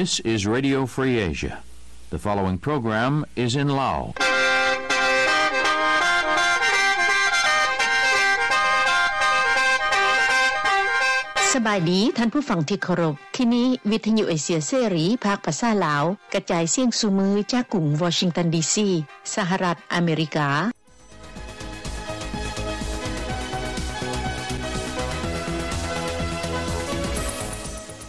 This is Radio Free Asia. The following program is in Lao. ສະບາຍດີທ່ານຜູ້ຟັງທີ່ເຄົາລົບ. ທີ່ນີ້ວິທະຍຸເອເຊຍເສລີ ພາກພາສາລາວ ກະຈາຍສຽງສູ່ມື້ຈາກກຸງວໍຊິງຕັນ ດີຊີ ສະຫະລັດອາເມລິກາ.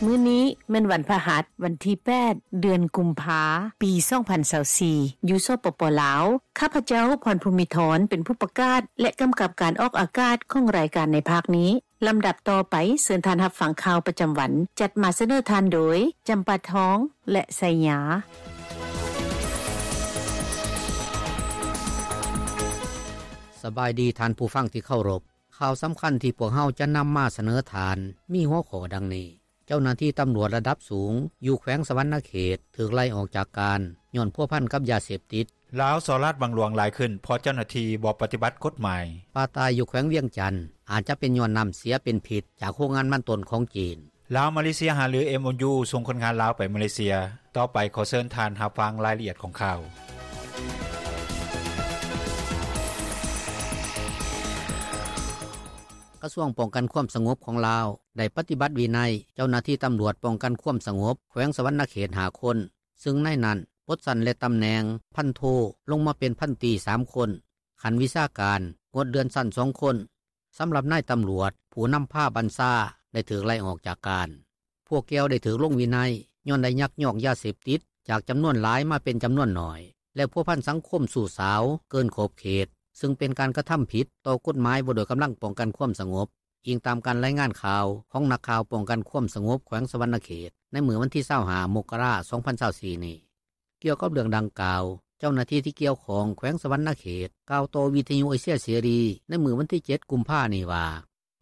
ມື້ນີ້ແມ່ນວັນພະຫັດ ວັນທີແປດ ເດືອນກຸມພາ ປີສອງພັນຊາວສີ່ ຢູ່ ສປປ ລາວ. ຂ້າພະເຈົ້າ ພອນພູມິທອນ ເປັນຜູ້ປະກາດ ແລະ ກຳກັບການອອກອາກາດຂອງລາຍການໃນພາກນີ້. ລຳດັບຕໍ່ໄປ ເຊີນທ່ານຮັບຟັງຂ່າວປະຈຳວັນ ຈັດມາສະເໜີທ່ານໂດຍ ຈຳປາທອງ ແລະ ໄຊຍາ. ສະບາຍດີທ່ານຜູ້ຟັງທີ່ເຄົາລົບ. ຂ່າວສຳຄັນທີ່ພວກເຮົາຈະນຳມາສະເໜີທ່ານ ມີຫົວຂໍ້ດັ່ງນີ້: ເຈົ້າໜ້າທີ່ຕຳຫຼວດລະດັບສູງ ຢູ່ແຂວງສະຫວັນນະເຂດ ຖືກໄລ່ອອກຈາກການ ຍ້ອນພົວພັນກັບຢາເສບຕິດ. ລາວສໍ້ລາດບັງຫຼວງຫຼາຍຂຶ້ນ ເພາະເຈົ້າໜ້າທີ່ບໍ່ປະຕິບັດກົດໝາຍ. ປາຕາຍຢູ່ແຂວງວຽງຈັນ ອາດຈະເປັນຍ້ອນນ້ຳເສຍເປັນພິດ ຈາກໂຮງງານມັນຕົ້ນຂອງຈີນ. ລາວ-ມາເລເຊຍ ຫາລື ເອັມໂອຢູ ສົ່ງຄົນງານລາວໄປມາເລເຊຍ. ຕໍ່ໄປຂໍເຊີນທ່ານຮັບຟັງລາຍລະອຽດຂອງຂ່າວ. ກະຊວງປ້ອງກັນຄວາມສະຫງົບຂອງລາວ ໄດ້ປະຕິບັດວິໄນເຈົ້າໜ້າທີ່ຕຳຫຼວດປ້ອງກັນຄວາມສະຫງົບແຂວງສະຫວັນນະເຂດຫ້າຄົນ, ຊຶ່ງໃນນັ້ນປົດຊັ້ນ ແລະ ຕຳແໜ່ງພັນໂທ ລົງມາເປັນພັນຕີສາມຄົນ, ຂັ້ນວິຊາການງົດເລື່ອນຊັ້ນສອງຄົນ. ສຳລັບນາຍຕຳຫຼວດຜູ້ນຳພາບັນຊາ ໄດ້ຖືກໄລ່ອອກຈາກການ. ພວກກ່ຽວໄດ້ຖືກລົງວິໄນ ຍ້ອນໄດ້ຍັກຍອກຢາເສບຕິດຈາກຈຳນວນຫຼາຍມາເປັນຈຳນວນໜ້ອຍ ແລະ ພົວພັນສັງຄົມຊູ້ສາວເກີນຂອບເຂດ, ຊຶ່ງເປັນການກະທຳຜິດຕໍ່ກົດໝາຍວ່າດ້ວຍກຳລັງປ້ອງກັນຄວາມສະຫງົບ, ອີງຕາມການລາຍງານຂ່າວຂອງນັກຂ່າວປ້ອງກັນຄວາມສະຫງົບແຂວງສະຫວັນນະເຂດ ໃນມື້ວັນທີຊາວຫ້າ ມົກກະລາ ສອງພັນຊາວສີ່ນີ້. ກ່ຽວກັບເລື່ອງດັ່ງກ່າວ, ເຈົ້າໜ້າທີ່ທີ່ກ່ຽວຂ້ອງແຂວງສະຫວັນນະເຂດ ກ່າວຕໍ່ວິທະຍຸເອເຊຍເສລີໃນມື້ວັນທີເຈັດ ກຸມພານີ້ວ່າ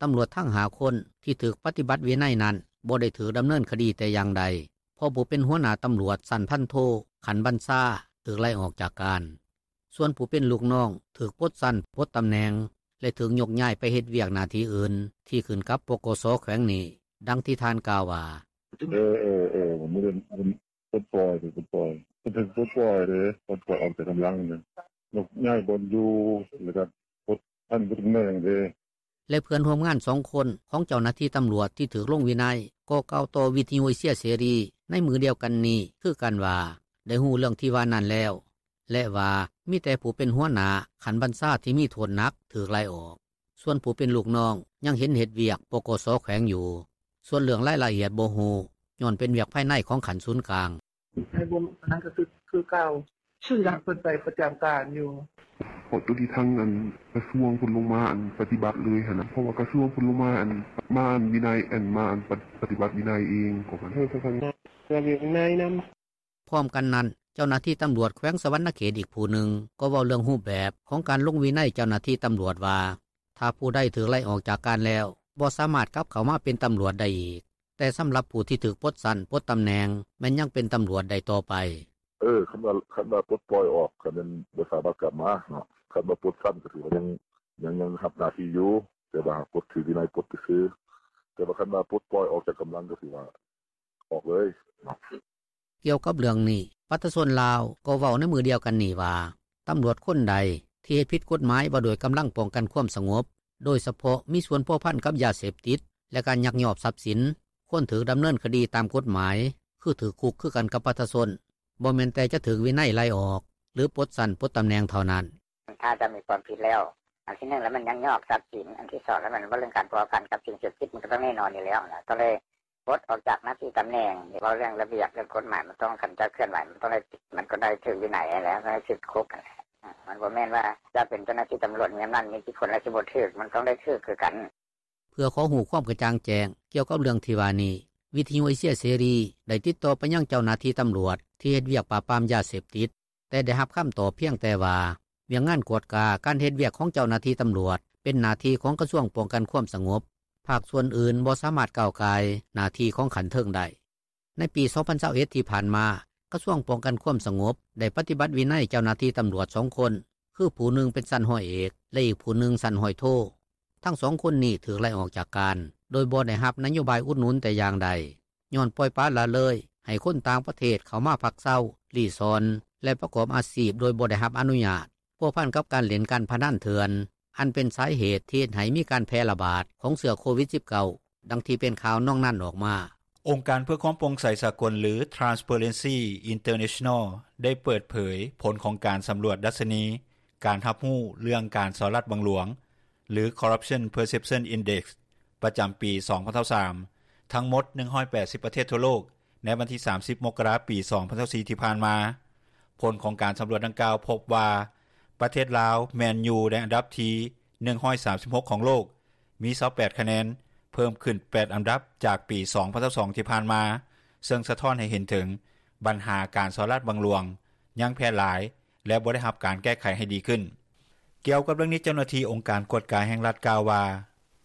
ຕຳຫຼວດທັງຫ້າຄົນທີ່ຖືກປະຕິບັດວິໄນນັ້ນ ບໍ່ໄດ້ຖືກດຳເນີນຄະດີແຕ່ຢ່າງໃດ, ເພາະຜູ້ເປັນຫົວໜ້າຕຳຫຼວດຊັ້ນພັນໂທ ຂັ້ນບັນຊາ ຖືກໄລ່ອອກຈາກການ. ສ່ວນຜູ້ເປັນລູກນ້ອງຖືກປົດຊັ້ນ, ປົດຕຳແໜ່ງ ແລະ ຖືກຍົກຍ້າຍໄປເຮັດວຽກໜ້າທີ່ອື່ນ ທີ່ຂຶ້ນກັບ ປກສ ແຂວງນີ້, ດັ່ງທີ່ທ່ານກ່າວວ່າ: ເອີ ເອີ ເອີ ມື້ ປົດປ່ອຍ ຖືກປົດປ່ອຍ ເພິ່ນຖືກປົດປ່ອຍເດ້ ປົດປ່ອຍອອກຈາກກຳລັງເດ້ ຍົກຍ້າຍບ່ອນຢູ່ ແລ້ວກໍປົດຊັ້ນ ປົດຕຳແໜ່ງເດ້. ແລະ ເພື່ອນຮ່ວມງານສອງຄົນຂອງເຈົ້າໜ້າທີ່ຕຳຫຼວດທີ່ຖືກລົງວິໄນ ກໍກ່າວຕໍ່ວິທະຍຸເອເຊຍເສລີໃນມື້ດຽວກັນນີ້ຄືກັນວ່າ ໄດ້ຮູ້ເລື່ອງທີ່ວ່ານັ້ນແລ້ວ ແລະ ວ່າມີແຕ່ຜູ້ເປັນຫົວໜ້າຂັ້ນບັນຊາທີ່ມີໂທດໜັກຖືກໄລ່ອອກ. ສ່ວນຜູ້ເປັນລູກນ້ອງຍັງເຫັນເຮັດວຽກ ປກສ ແຂວງຢູ່. ສ່ວນເລື່ອງລາຍລະອຽດບໍ່ຮູ້ ຍ້ອນເປັນວຽກພາຍໃນຂອງຂັ້ນສູນກາງ. ໃຫ້ບໍ່ ອັນນັ້ນກໍຄື ຄືເກົ່າ ຊື່ລະ ເພິ່ນໄປປະຈຳການຢູ່ ເພາະໂຕທີ່ທາງ ອັນ ກະຊວງເພິ່ນລົງມາ ອັນ ປະຕິບັດເລີຍຫັ້ນນະ ເພາະວ່າກະຊວງເພິ່ນລົງມາ ອັນ ມາ ອັນ ວິໄນ ອັນ ມາ ອັນ ປະ ປະຕິບັດວິໄນເອງ ຂອງມັນ ເອີ ເພິ່ນ ເພິ່ນລະວຽກວິໄນນຳ. ພ້ອມກັນນັ້ນ, ເຈົ້າໜ້າທີ່ຕຳຫຼວດແຂວງສະຫວັນນະເຂດອີກຜູ້ໜຶ່ງ ກໍເວົ້າເລື່ອງຮູບແບບຂອງການລົງວິໄນເຈົ້າໜ້າທີ່ຕຳຫຼວດວ່າ ຖ້າຜູ້ໃດຖືກໄລ່ອອກຈາກການແລ້ວ ບໍ່ສາມາດກັບເຂົ້າມາເປັນຕຳຫຼວດໄດ້ອີກ, ແຕ່ສຳລັບຜູ້ທີ່ຖືກປົດຊັ້ນ ປົດຕຳແໜ່ງ ແມ່ນຍັງເປັນຕຳຫຼວດໄດ້ຕໍ່ໄປ. ເອີ ຄັນວ່າ ຄັນວ່າປົດປ່ອຍອອກ ກໍແມ່ນບໍ່ສາມາດກັບມາເນາະ, ຄັນວ່າປົດຊັ້ນກໍຖືວ່າຍັງ ຍັງ ຍັງຮັບໜ້າທີ່ຢູ່, ແຕ່ວ່າປົດຖືກວິໄນປົດຊື່ໆ, ແຕ່ວ່າຄັນວ່າປົດປ່ອຍອອກຈາກກຳລັງ ກໍຖືວ່າອອກເລີຍເນາະ. ກ່ຽວກັບເລື່ອງນີ້, ປະຊາຊົນລາວກໍເວົ້າໃນມື້ດຽວກັນນີ້ວ່າ ຕຳຫຼວດຄົນໃດທີ່ເຮັດຜິດກົດໝາຍວ່າດ້ວຍກຳລັງປ້ອງກັນຄວາມສະຫງົບ, ໂດຍສະເພາະມີສ່ວນພົວພັນກັບຢາເສບຕິດ ແລະ ການຍັກຍອກຊັບສິນ, ຄວນຖືກດຳເນີນຄະດີຕາມກົດໝາຍ ຄືຖືກຄຸກຄືກັນກັບປະຊາຊົນ, ບໍ່ແມ່ນແຕ່ຈະຖືກວິໄນໄລ່ອອກ ຫຼື ປົດຊັ້ນປົດຕຳແໜ່ງເທົ່ານັ້ນ. ຖ້າຈະມີຄວາມຜິດແລ້ວ ອັນທີໜຶ່ງແລ້ວມັນຍັກຍອກຊັບສິນ, ອັນທີສອງແລ້ວມັນເວົ້າເລື່ອງການພົວພັນກັບສິ່ງເສບຕິດ ມັນກໍຕ້ອງແນ່ນອນຢູ່ແລ້ວນະ, ຕ້ອງໄດ້ ປົດອອກຈາກໜ້າທີ່ຕຳແໜ່ງ, ເວົ້າເລື່ອງລະບຽບເລື່ອງກົດໝາຍ ມັນຕ້ອງ ຄັນເຈົ້າເຄື່ອນໄຫວ ມັນຕ້ອງໄດ້ ມັນກໍໄດ້ຖືກວິໄນຫັ້ນແຫຼະ, ຕ້ອງໄດ້ຖືກຄຸກຫັ້ນແຫຼະ. ມັນບໍ່ແມ່ນວ່າຈະເປັນເຈົ້າໜ້າທີ່ຕຳຫຼວດມີອຳນາດ ມີອິດທິພົນ ແລ້ວຊິບໍ່ຖືກ, ມັນຕ້ອງໄດ້ຖືກຄືກັນ. ເພື່ອຂໍຮູ້ຄວາມກະຈ່າງແຈ້ງກ່ຽວກັບເລື່ອງທີ່ວ່ານີ້, ວິທະຍຸເອເຊຍເສລີໄດ້ຕິດຕໍ່ໄປຍັງເຈົ້າໜ້າທີ່ຕຳຫຼວດທີ່ເຮັດວຽກປາບປາມຢາເສບຕິດ, ແຕ່ໄດ້ຮັບຄຳຕອບພຽງແຕ່ວ່າ ວຽກງານກວດກາການເຮັດວຽກຂອງເຈົ້າໜ້າທີ່ຕຳຫຼວດ ເປັນໜ້າທີ່ຂອງກະຊວງປ້ອງກັນຄວາມສະຫງົບ, ພາກສ່ວນອື່ນບໍ່ສາມາດກ້າວກ່າຍໜ້າທີ່ຂອງຂັ້ນເທິງໄດ້. ໃນປີສອງພັນຊາວເອັດທີ່ຜ່ານມາ, ກະຊວງປ້ອງກັນຄວາມສະຫງົບໄດ້ປະຕິບັດວິໄນເຈົ້າໜ້າທີ່ຕຳຫຼວດສອງຄົນ, ຄືຜູ້ໜຶ່ງເປັນຊັ້ນຮ້ອຍເອກ ແລະ ອີກຜູ້ໜຶ່ງຊັ້ນຮ້ອຍໂທ. ທັງສອງຄົນນີ້ຖືກໄລ່ອອກຈາກການ ໂດຍບໍ່ໄດ້ຮັບນະໂຍບາຍອຸດໜູນແຕ່ຢ່າງໃດ, ຍ້ອນປ່ອຍປະລະເລີຍໃ ຫ້ຄົນຕ່າງປະເທດເຂົ້າມາພັກເຊົາ, ລີ້ຊ່ອນ ແລະປະກອບອາຊີບໂດຍບໍ່ໄດ້ຮັບອະນຸຍາດ, ພົວພັນກັບການຫຼິ້ນການພະນັນເຖື່ອນ ອັນເປັນສາເຫດທີ່ເຮັດໃຫ້ມີການແຜ່ລະບາດຂອງເຊື້ອໂຄວິດ-19 ດັ່ງທີ່ເປັນຂ່າວນອງນັ້ນອອກມາ. ອົງການເພື່ອຄວາມໂປ່ງໃສສາກົນ ຫຼື Transparency International ໄດ້ເປີດເຜີຍຜົນຂອງການສຳຫຼວດດັດຊະນີການຮັບຮູ້ເລື່ອງການສໍ້ລາດບັງຫຼວງ ຫຼື Corruption Perception Index ປະຈຳປີ ສອງພັນຊາວສາມ ທັງໝົດ ໜຶ່ງຮ້ອຍແປດສິບ ປະເທດທົ່ວໂລກ ໃນວັນທີ ສາມສິບ ມົກກະລາ ປີ ສອງພັນຊາວສີ່ ທີ່ຜ່ານມາ. ຜົນຂອງການສຳຫຼວດດັ່ງກ່າວພົບວ່າ ປະເທດລາວແມ່ນຢູ່ໃນອັນດັບທີ ໜຶ່ງຮ້ອຍສາມສິບຫົກ ຂອງໂລກ, ມີ ຊາວແປດ ຄະແນນ, ເພີ່ມຂຶ້ນ ແປດ ອັນດັບຈາກປີ ສອງພັນຊາວສອງ ທີ່ຜ່ານມາ, ເຊິ່ງສະທ້ອນໃຫ້ເຫັນເຖິງບັນຫາການສໍ້ລາດບັງຫຼວງຍັງແຜ່ຫຼາຍ ແລະ ບໍ່ໄດ້ຮັບການແກ້ໄຂໃຫ້ດີຂຶ້ນ. ກ່ຽວກັບເລື່ອງນີ້, ເຈົ້າໜ້າທີ່ອົງການກວດກາແຫ່ງລັດກ່າວວ່າ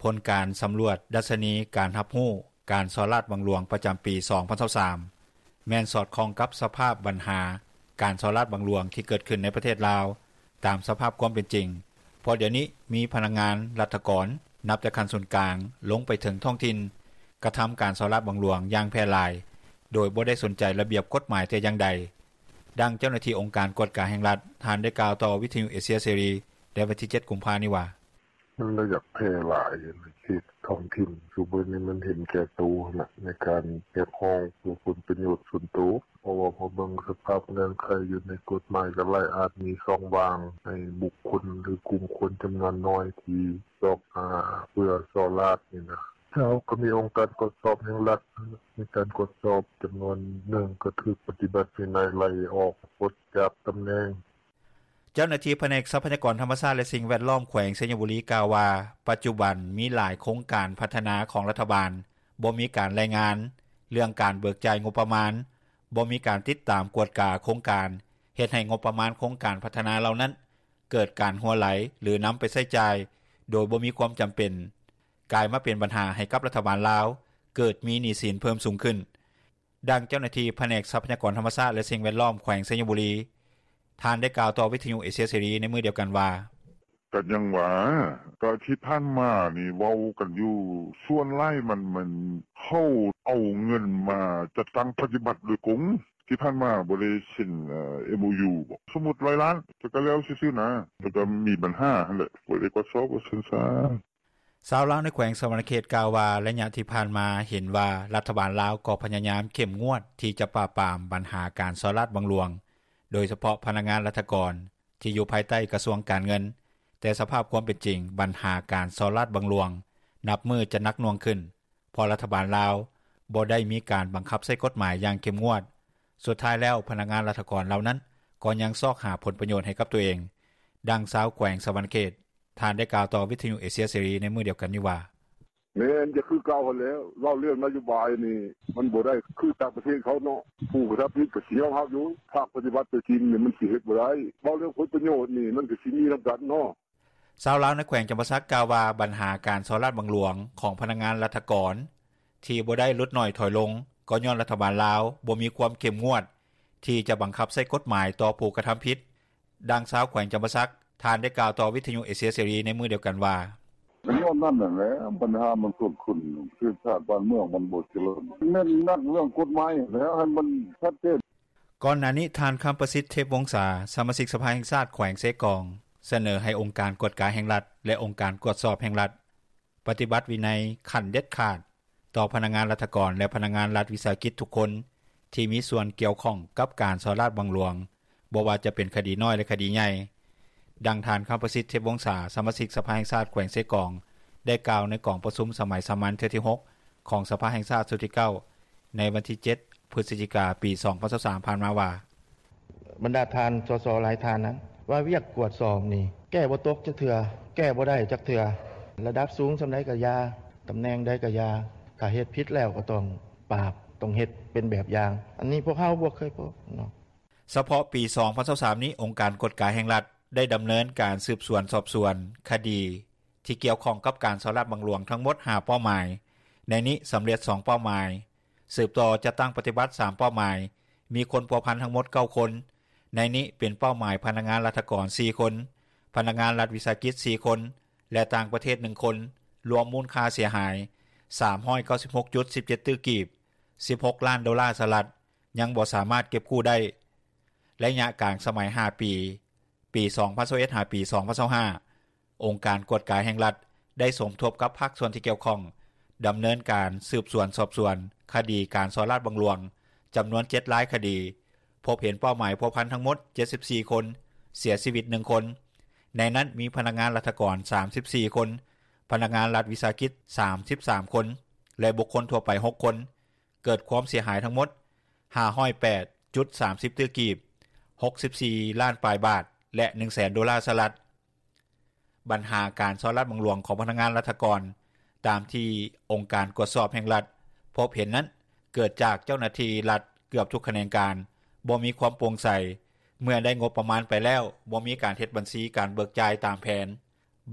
ຜົນການສຳຫຼວດດັດຊະນີການຮັບຮູ້ການສໍ້ລາດບັງຫຼວງປະຈຳປີ ສອງພັນຊາວສາມ ແມ່ນສອດຄ່ອງກັບສະພາບບັນຫາການສໍ້ລາດບັງຫຼວງທີ່ເກີດຂຶ້ນໃນປະເທດລາວ ຕາມສະພາບຄວາມເປັນຈິງ, ເພາະດຽວນີ້ມີພະນັກງານລັດຖະກອນ ນັບແຕ່ຂັ້ນສູນກາງລົງໄປເຖິງທ້ອງຖິ່ນ ກະທຳການສໍ້ລາດບັງຫຼວງຢ່າງແຜ່ຫຼາຍ ໂດຍບໍ່ໄດ້ສົນໃຈລະບຽບກົດໝາຍແຕ່ຢ່າງໃດ. ດັ່ງເຈົ້າໜ້າທີ່ອົງການກວດກາແຫ່ງລັດ ທ່ານໄດ້ກ່າວຕໍ່ວິທະຍຸເອເຊຍເສລີ ໃນວັນທີ ເຈັດ ກຸມພານີ້ວ່າ: ມັນລະຢາກແຜ່ຫຼາຍໃນເຂດທ້ອງຖິ່ນ, ຊຸມື້ນີ້ມັນເຫັນແກ່ໂຕຫັ້ນແຫຼະ ໃນການຮຽກຮ້ອງເພື່ອຜົນປະໂຫຍດສ່ວນໂຕ, ເພາະວ່າພໍເບິ່ງສະພາບເງື່ອນໄຂຢູ່ໃນກົດໝາຍ ກໍຫຼາຍອາດມີຊ່ອງວ່າງໃຫ້ບຸກຄົນ ຫຼື ກຸ່ມຄົນຈຳນວນນ້ອຍທີ່ຊອກຫາເພື່ອສໍ້ລາດນີ້ນະ. ເຮົາກໍມີອົງການກວດສອບແຫ່ງລັດ ໃນການກວດສອບຈຳນວນໜຶ່ງ ກໍຖືກປະຕິບັດວິໄນໄລ່ອອກປົດຈາກຕຳແໜ່ງ. ເຈົ້າໜ້າທີ່ພະແນກຊັບພະຍາກອນທຳມະຊາດ ແລະ ສິ່ງແວດລ້ອມ ແຂວງໄຊຍະບູລີ ກ່າວວ່າ ປັດຈຸບັນມີຫຼາຍໂຄງການພັດທະນາຂອງລັດຖະບານ ບໍ່ມີການລາຍງານເລື່ອງການເບີກຈ່າຍງົບປະມານ, ບໍ່ມີການຕິດຕາມກວດກາໂຄງການ, ເຮັດໃຫ້ງົບປະມານໂຄງການພັດທະນາເຫຼົ່ານັ້ນ ເກີດການຮົ່ວໄຫຼ ຫຼື ນຳໄປໃຊ້ຈ່າຍໂດຍບໍ່ມີຄວາມຈຳເປັນ, ກາຍມາເປັນບັນຫາໃຫ້ກັບລັດຖະບານລາວ ເກີດມີໜີ້ສິນເພີ່ມສູງຂຶ້ນ. ດັ່ງເຈົ້າໜ້າທີ່ພະແນກຊັບພະຍາກອນທຳມະຊາດ ແລະ ສິ່ງແວດລ້ອມ ແຂວງໄຊຍະບູລີ ທ່ານໄດ້ກ່າວຕໍ່ວິທະຍຸເອເຊຍເສລີໃນມື້ດຽວກັນວ່າ: ກໍຍັງວ່າ ກໍທີ່ຜ່ານມານີ້ເວົ້າກັນຢູ່ ສ່ວນຫຼາຍມັນ ມັນເຂົາເອົາເງິນມາຈັດຕັ້ງປະຕິບັດໂດຍກົງ, ທີ່ຜ່ານມາບໍ່ໄດ້ເຊັນ ເອີ່ ເອັມໂອຢູ ບໍ? ສົມມຸດ ຮ້ອຍລ້ານ ແຕ່ກໍແລ້ວຊື່ໆ ນະ, ແຕ່ກໍມີບັນຫາຫັ້ນແຫຼະ ບໍ່ໄດ້ກວດສອບວ່າຊັ້ນຊະ. ຊາວລາວໃນແຂວງສະຫວັນນະເຂດກ່າວວ່າ ໄລຍະທີ່ຜ່ານມາເຫັນວ່າລັດຖະບານລາວກໍພະຍາຍາມເຂັ້ມງວດທີ່ຈະປາບປາມບັນຫາການສໍ້ລາດບັງຫຼວງ, ໂດຍສະເພາະພະນັກງານລັດຖະກອນທີ່ຢູ່ພາຍໃຕ້ກະຊວງການເງິນ, ແຕ່ສະພາບຄວາມເປັນຈິງ ບັນຫາການສໍ້ລາດບັງຫຼວງນັບມື້ຈະໜັກໜ່ວງຂຶ້ນ ເພາະລັດຖະບານລາວບໍ່ໄດ້ມີການບັງຄັບໃຊ້ກົດໝາຍຢ່າງເຂັ້ມງວດ. ສຸດທ້າຍແລ້ວ ພະນັກງານລັດຖະກອນເຫຼົ່ານັ້ນກໍຍັງຊອກຫາຜົນປະໂຫຍດໃຫ້ກັບຕົວເອງ. ດັ່ງຊາວແຂວງສະຫວັນນະເຂດ ທ່ານໄດ້ກ່າວຕໍ່ວິທະຍຸເອເຊຍເສລີໃນມື້ດຽວກັນນີ້ວ່າ: ແມ່ນ ຈະຄືເກົ່າຫັ້ນແຫຼະ, ເວົ້າເລື່ອງນະໂຍບາຍນີ້ ມັນບໍ່ໄດ້ຄືຕ່າງປະເທດເຂົາເນາະ, ຜູ້ກະທຳຜິດກໍຊິຍອມຮັບຢູ່, ພາກປະຕິບັດຕົວຈິງນີ້ມັນຊິເຮັດບໍ່ໄດ້, ເວົ້າເລື່ອງຜົນປະໂຫຍດນີ້ມັນກໍຊິມີນຳກັນເນາະ. ຊາວລາວໃນແຂວງຈຳປາສັກກ່າວວ່າ ບັນຫາການສໍ້ລາດບັງຫຼວງຂອງພະນັກງານລັດຖະກອນທີ່ບໍ່ໄດ້ຫຼຸດໜ້ອຍຖອຍລົງ ກໍຍ້ອນລັດຖະບານລາວບໍ່ມີຄວາມເຂັ້ມງວດທີ່ຈະບັງຄັບໃຊ້ກົດໝາຍຕໍ່ຜູ້ກະທຳຜິດ. ດັ່ງຊາວແຂວງຈຳປາສັກ ທ່ານໄດ້ກ່າວຕໍ່ວິທະຍຸເອເຊຍເສລີໃນມື້ດຽວກັນວ່າ: ກໍຍ້ອນນັ້ນຫັ້ນແຫຼະ ບັນຫາມັນເກີດຂຶ້ນ ປະເທດຊາດບ້ານເມືອງມັນບໍ່ຈະເລີນ, ແມ່ນໜັກເລື່ອງກົດໝາຍຫັ້ນແຫຼະ ໃຫ້ມັນຊັດເຈນ. ກ່ອນໜ້ານີ້ ທ່ານ ຄຳປະສິດ ເທບວົງສາ ສະມາຊິກສະພາແຫ່ງຊາດແຂວງເຊກອງ ສະເໜີໃຫ້ອົງການກວດກາແຫ່ງລັດ ແລະ ອົງການກວດສອບແຫ່ງລັດ ປະຕິບັດວິໄນຂັ້ນເດັດຂາດຕໍ່ພະນັກງານລັດຖະກອນ ແລະ ພະນັກງານລັດວິສາຫະກິດທຸກຄົນທີ່ມີສ່ວນກ່ຽວຂ້ອງກັບການສໍ້ລາດບັງຫຼວງ, ບໍ່ວ່າຈະເປັນຄະດີນ້ອຍ ແລະ ຄະດີໃຫຍ່. ດັ່ງທ່ານ ຄຳປະສິດ ເທບວົງສາ ສະມາຊິກສະພາແຫ່ງຊາດແຂວງເຊກອງ ໄດ້ກ່າວໃນກອງປະຊຸມສະໄໝສາມັນເທື່ອທີຫົກ ຂອງສະພາແຫ່ງຊາດຊຸດທີເກົ້າ ໃນວັນທີເຈັດ ພຶສຈິກາ ປີສອງພັນຊາວສາມ ຜ່ານມາວ່າ: ບັນດາທ່ານ ສສ ຫຼາຍທ່ານນັ້ນ ວ່າວຽກກວດສອບນີ້ແກ້ບໍ່ຕົກຈັກເທື່ອ, ແກ້ບໍ່ໄດ້ຈັກເທື່ອ, ລະດັບສູງສ່ຳໃດກໍຢ່າ, ຕຳແໜ່ງໃດກໍຢ່າ, ຖ້າເຮັດຜິດແລ້ວກໍຕ້ອງປາບ, ຕ້ອງເຮັດເປັນແບບຢ່າງ, ອັນນີ້ພວກເຮົາບໍ່ເຄີຍພົບເນາະ. ສະເພາະປີສອງພັນຊາວສາມນີ້ ອົງການກວດກາແຫ່ງລັດ ໄດ້ດຳເນີນການສືບສວນສອບສວນຄະດີທີ່ກ່ຽວຂ້ອງກັບການສໍ້ລາດບັງຫຼວງທັງໝົດຫ້າເປົ້າໝາຍ, ໃນນີ້ສຳເລັດສອງເປົ້າໝາຍ, ສືບຕໍ່ຈັດຕັ້ງປະຕິບັດສາມເປົ້າໝາຍ, ມີຄົນພົວພັນທັງໝົດເກົ້າຄົນ, ໃນນີ້ເປັນເປົ້າໝາຍພະນັກງານລັດຖະກອນສີ່ຄົນ, ພະນັກງານລັດວິສາຫະກິດສີ່ຄົນ ແລະ ຕ່າງປະເທດໜຶ່ງຄົນ, ລວມມູນຄ່າເສຍຫາຍສາມຮ້ອຍເກົ້າສິບຫົກຈຸດສິບເຈັດຕື້ກີບ, ສິບຫົກລ້ານໂດລາສະຫະລັດ, ຍັງບໍ່ສາມາດເກັບກູ້ໄດ້. ໄລຍະກາງສະໄໝ ຫ້າປີ ປີ 2021-2025 ອົງການກວດກາແຫ່ງລັດ ໄດ້ສົມທົບກັບພາກສ່ວນທີ່ກ່ຽວຂ້ອງ ດຳເນີນການສືບສວນສອບສວນ ຄະດີການສໍ້ລາດບັງຫຼວງ ຈຳນວນ 7 ລາຍຄະດີ, ພົບເຫັນເປົ້າໝາຍພົວພັນທັງໝົດ 74 ຄົນ, ເສຍຊີວິດ ໜຶ່ງຄົນ. ໃນນັ້ນມີພະນັກງານລັດຖະກອນ 34 ຄົນ, ພະນັກງານລັດວິສາຫະກິດ 33 ຄົນ ແລະ ບຸກຄົນທົ່ວໄປ 6 ຄົນ. ເກີດຄວາມເສຍຫາຍທັງໝົດ 508.30 ຕື້ກີບ, 64 ລ້ານປາຍບາດ ແລະ ໜຶ່ງແສນໂດລາສະຫະລັດ. ບັນຫາການສໍ້ລາດບັງຫຼວງຂອງພະນັກງານລັດຖະກອນ ຕາມທີ່ອົງການກວດສອບແຫ່ງລັດ ພົບເຫັນນັ້ນ ເກີດຈາກເຈົ້າໜ້າທີ່ລັດເກືອບທຸກຂະແໜງການ ບໍ່ມີຄວາມໂປ່ງໃສ, ເມື່ອໄດ້ງົບປະມານໄປແລ້ວ ບໍ່ມີການເຮັດບັນຊີການເບີກຈ່າຍຕາມແຜນ,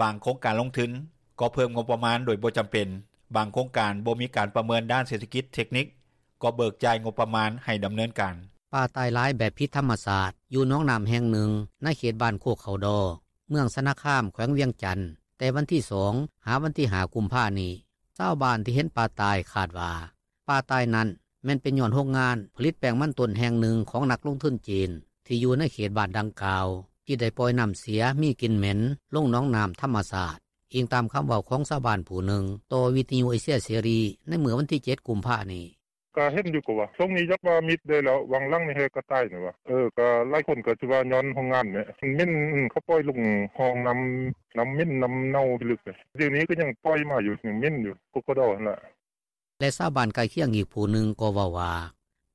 ບາງໂຄງການລົງທຶນກໍເພີ່ມງົບປະມານໂດຍບໍ່ຈຳເປັນ, ບາງໂຄງການບໍ່ມີການປະເມີນດ້ານເສດຖະກິດເທັກນິກ ກໍເບີກຈ່າຍງົບປະມານໃຫ້ດຳເນີນການ. ປາຕາຍຫຼາຍແບບຜິດທຳມະຊາດ ຢູ່ໜອງນ້ຳແຫ່ງໜຶ່ງ ໃນເຂດບ້ານໂຄກເຂົ້າດໍ ເມືອງຊະນະຄາມ ແຂວງວຽງຈັນ ແຕ່ວັນທີ 2 ຫາວັນທີ 5 ກຸມພານີ້. ຊາວບ້ານທີ່ເຫັນປາຕາຍຄາດວ່າ ປາຕາຍນັ້ນແມ່ນເປັນຍ້ອນໂຮງງານຜະລິດແປ້ງມັນຕົ້ນແຫ່ງໜຶ່ງຂອງນັກລົງທຶນຈີນ ທີ່ຢູ່ໃນເຂດບ້ານດັ່ງກ່າວ ທີ່ໄດ້ປ່ອຍນ້ຳເສຍມີກິ່ນເໝັນລົງໜອງນ້ຳທຳມະຊາດ, ອີງຕາມຄຳເວົ້າຂອງຊາວບ້ານຜູ້ໜຶ່ງຕໍ່ວິທຍຸເອເຊຍເສລີໃນມື້ວັນທີ 7 ກຸມພານີ້. ກະເຫັນຢູ່ກໍວ່າ ຊ່ວງນີ້ຈັກວ່າມິດໄດ້ແລ້ວ ຫວ່າງຫຼັງນີ້ແຮກະຕາຍນີ້ວ່າ ເອີ ກະຫຼາຍຄົນກະຊິວ່າຍ້ອນໂຮງງານແຫຼະ ມັນເໝັນ ເຂົາປ່ອຍລົງຮ່ອງນ້ຳ ນ້ຳເໝັນ ນ້ຳເນົ່າພິລຶກເດ ດຽວນີ້ກະຍັງປ່ອຍມາຢູ່ ຍັງເໝັນຢູ່ ໂຄກເຂົ້າດໍຫັ້ນລະ. ແລະຊາວບ້ານໃກ້ຄຽງອີກຜູ້ໜຶ່ງກໍເວົ້າວ່າ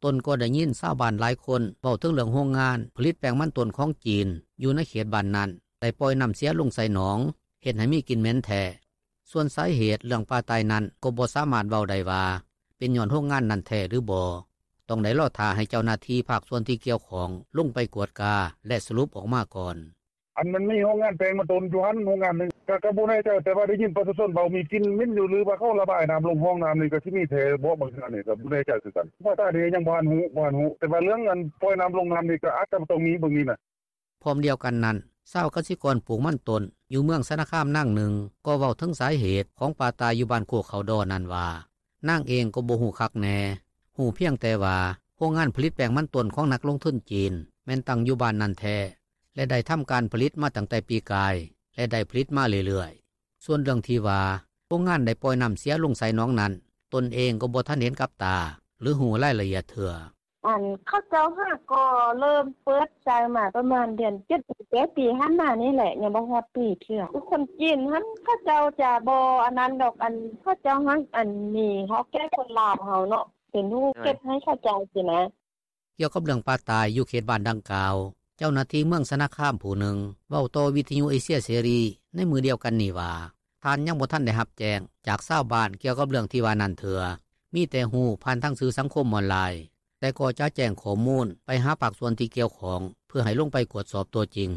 ຕົນກໍໄດ້ຍິນຊາວບ້ານຫຼາຍຄົນເວົ້າເຖິງເລື່ອງໂຮງງານຜະລິດແປ້ງມັນຕົ້ນຂອງຈີນ ຢູ່ໃນເຂດບ້ານນັ້ນ ໄດ້ປ່ອຍນ້ຳເສຍລົງໃສ່ໜອງ ເຮັດໃຫ້ມີກິ່ນເໝັນແທ້. ສ່ວນສາເຫດເລື່ອງປາຕາຍນັ້ນ ກໍບໍ່ສາມາດເວົ້າໄດ້ວ່າ ເປັນຍ້ອນໂຮງງານນັ້ນແທ້ຫຼືບໍ່, ຕ້ອງໄດ້ລໍຖ້າໃຫ້ເຈົ້າໜ້າທີ່ພາກສ່ວນທີ່ກ່ຽວຂ້ອງລົງໄປກວດກາ ແລະສະຫຼຸບອອກມາກ່ອນ. ອັນມັນມີໂຮງງານແປ້ງມັນຕົ້ນຢູ່ຫັ້ນ ໂຮງງານໜຶ່ງ ກະ ກະບໍ່ແນ່ໃຈ ແຕ່ວ່າໄດ້ຍິນປະຊາຊົນເວົ້າມີກິ່ນເໝັນຢູ່ ຫຼືວ່າເຂົາລະບາຍນ້ຳລົງຮ່ອງນ້ຳນີ້ ກະຊິມີແທ້ບໍ່ ບາງເທື່ອນີ້ກະບໍ່ແນ່ໃຈຄືກັນ ພາສານີ້ຍັງບໍ່ທັນຮູ້ ບໍ່ທັນຮູ້ ແຕ່ວ່າເລື່ອງອັນປ່ອຍນ້ຳລົງນ້ຳນີ້ ກະອາດຈະຕ້ອງມີເບິ່ງນີ້ນະ. ພ້ອມດຽວກັນນັ້ນ ຊາວກະສິກອນປູກມັນຕົ້ນຢູ່ເມືອງຊະນະຄາມນາງໜຶ່ງ ກໍເວົ້າເຖິງສາເຫດຂອງປາຕາຍຢູ່ບ້ານໂຄກເຂົ້າດໍນັ້ນວ່າ ນາງເອງກໍບໍ່ຮູ້ຄັກແນ່, ຮູ້ພຽງແຕ່ວ່າໂຮງງານຜະລິດແປ້ງມັນຕົ້ນຂອງນັກລົງທຶນຈີນ ແມ່ນຕັ້ງຢູ່ບ້ານນັ້ນແທ້ ແລະໄດ້ທຳການຜະລິດມາຕັ້ງແຕ່ປີກາຍ ແລະໄດ້ຜະລິດມາເລື້ອຍໆ. ສ່ວນເລື່ອງທີ່ວ່າ ໂຮງງານໄດ້ປ່ອຍນ້ຳເສຍລົງໃສ່ໜອງນັ້ນ ຕົນເອງກໍບໍ່ທັນເຫັນກັບຕາ ຫຼືຮູ້ລາຍລະອຽດເທື່ອ. ອັນເຂົາເຈົ້າຫາກໍເລີ່ມເປີດໃຊ້ມາປະມານເດືອນເຈັດ ແຕ່ປີຜ່ານມານີ້ແຫຼະ ຍັງບໍ່ຮອດປີເທື່ອ ຄືຄົນຈີນຫັ້ນ ເຂົາເຈົ້າຈະບໍ່ອັນນັ້ນດອກ ອັນເຂົາເຈົ້າຫາ ອັນມີເຮົາແກ່ຄົນລາວເຮົາເນາະ ເປັນຜູ້ເກັບໃຫ້ເຂົາເຈົ້າຊີ້ນະ. ກ່ຽວກັບເລື່ອງປາຕາຍຢູ່ເຂດບ້ານດັ່ງກ່າວ ເຈົ້າໜ້າທີ່ເມືອງຊະນະຄາມຜູ້ໜຶ່ງ ເວົ້າຕໍ່ວິທຍຸເອເຊຍເສລີໃນມື້ດຽວກັນນີ້ວ່າ ທ່ານຍັງບໍ່ທັນໄດ້ຮັບແຈ້ງຈາກຊາວບ້ານກ່ຽວກັບເລື່ອງທີ່ວ່ານັ້ນເທື່ອ, ມີແຕ່ຮູ້ຜ່ານທາງສື່ສັງຄົມອອນລາຍ, ແຕ່ກໍຈະແຈ້ງຂໍ້ມູນໄປຫາພາກສ່ວນທີ່ກ່ຽວຂ້ອງ ເພື່ອໃຫ້ລົງໄປກວດສອບຕົວຈິງ.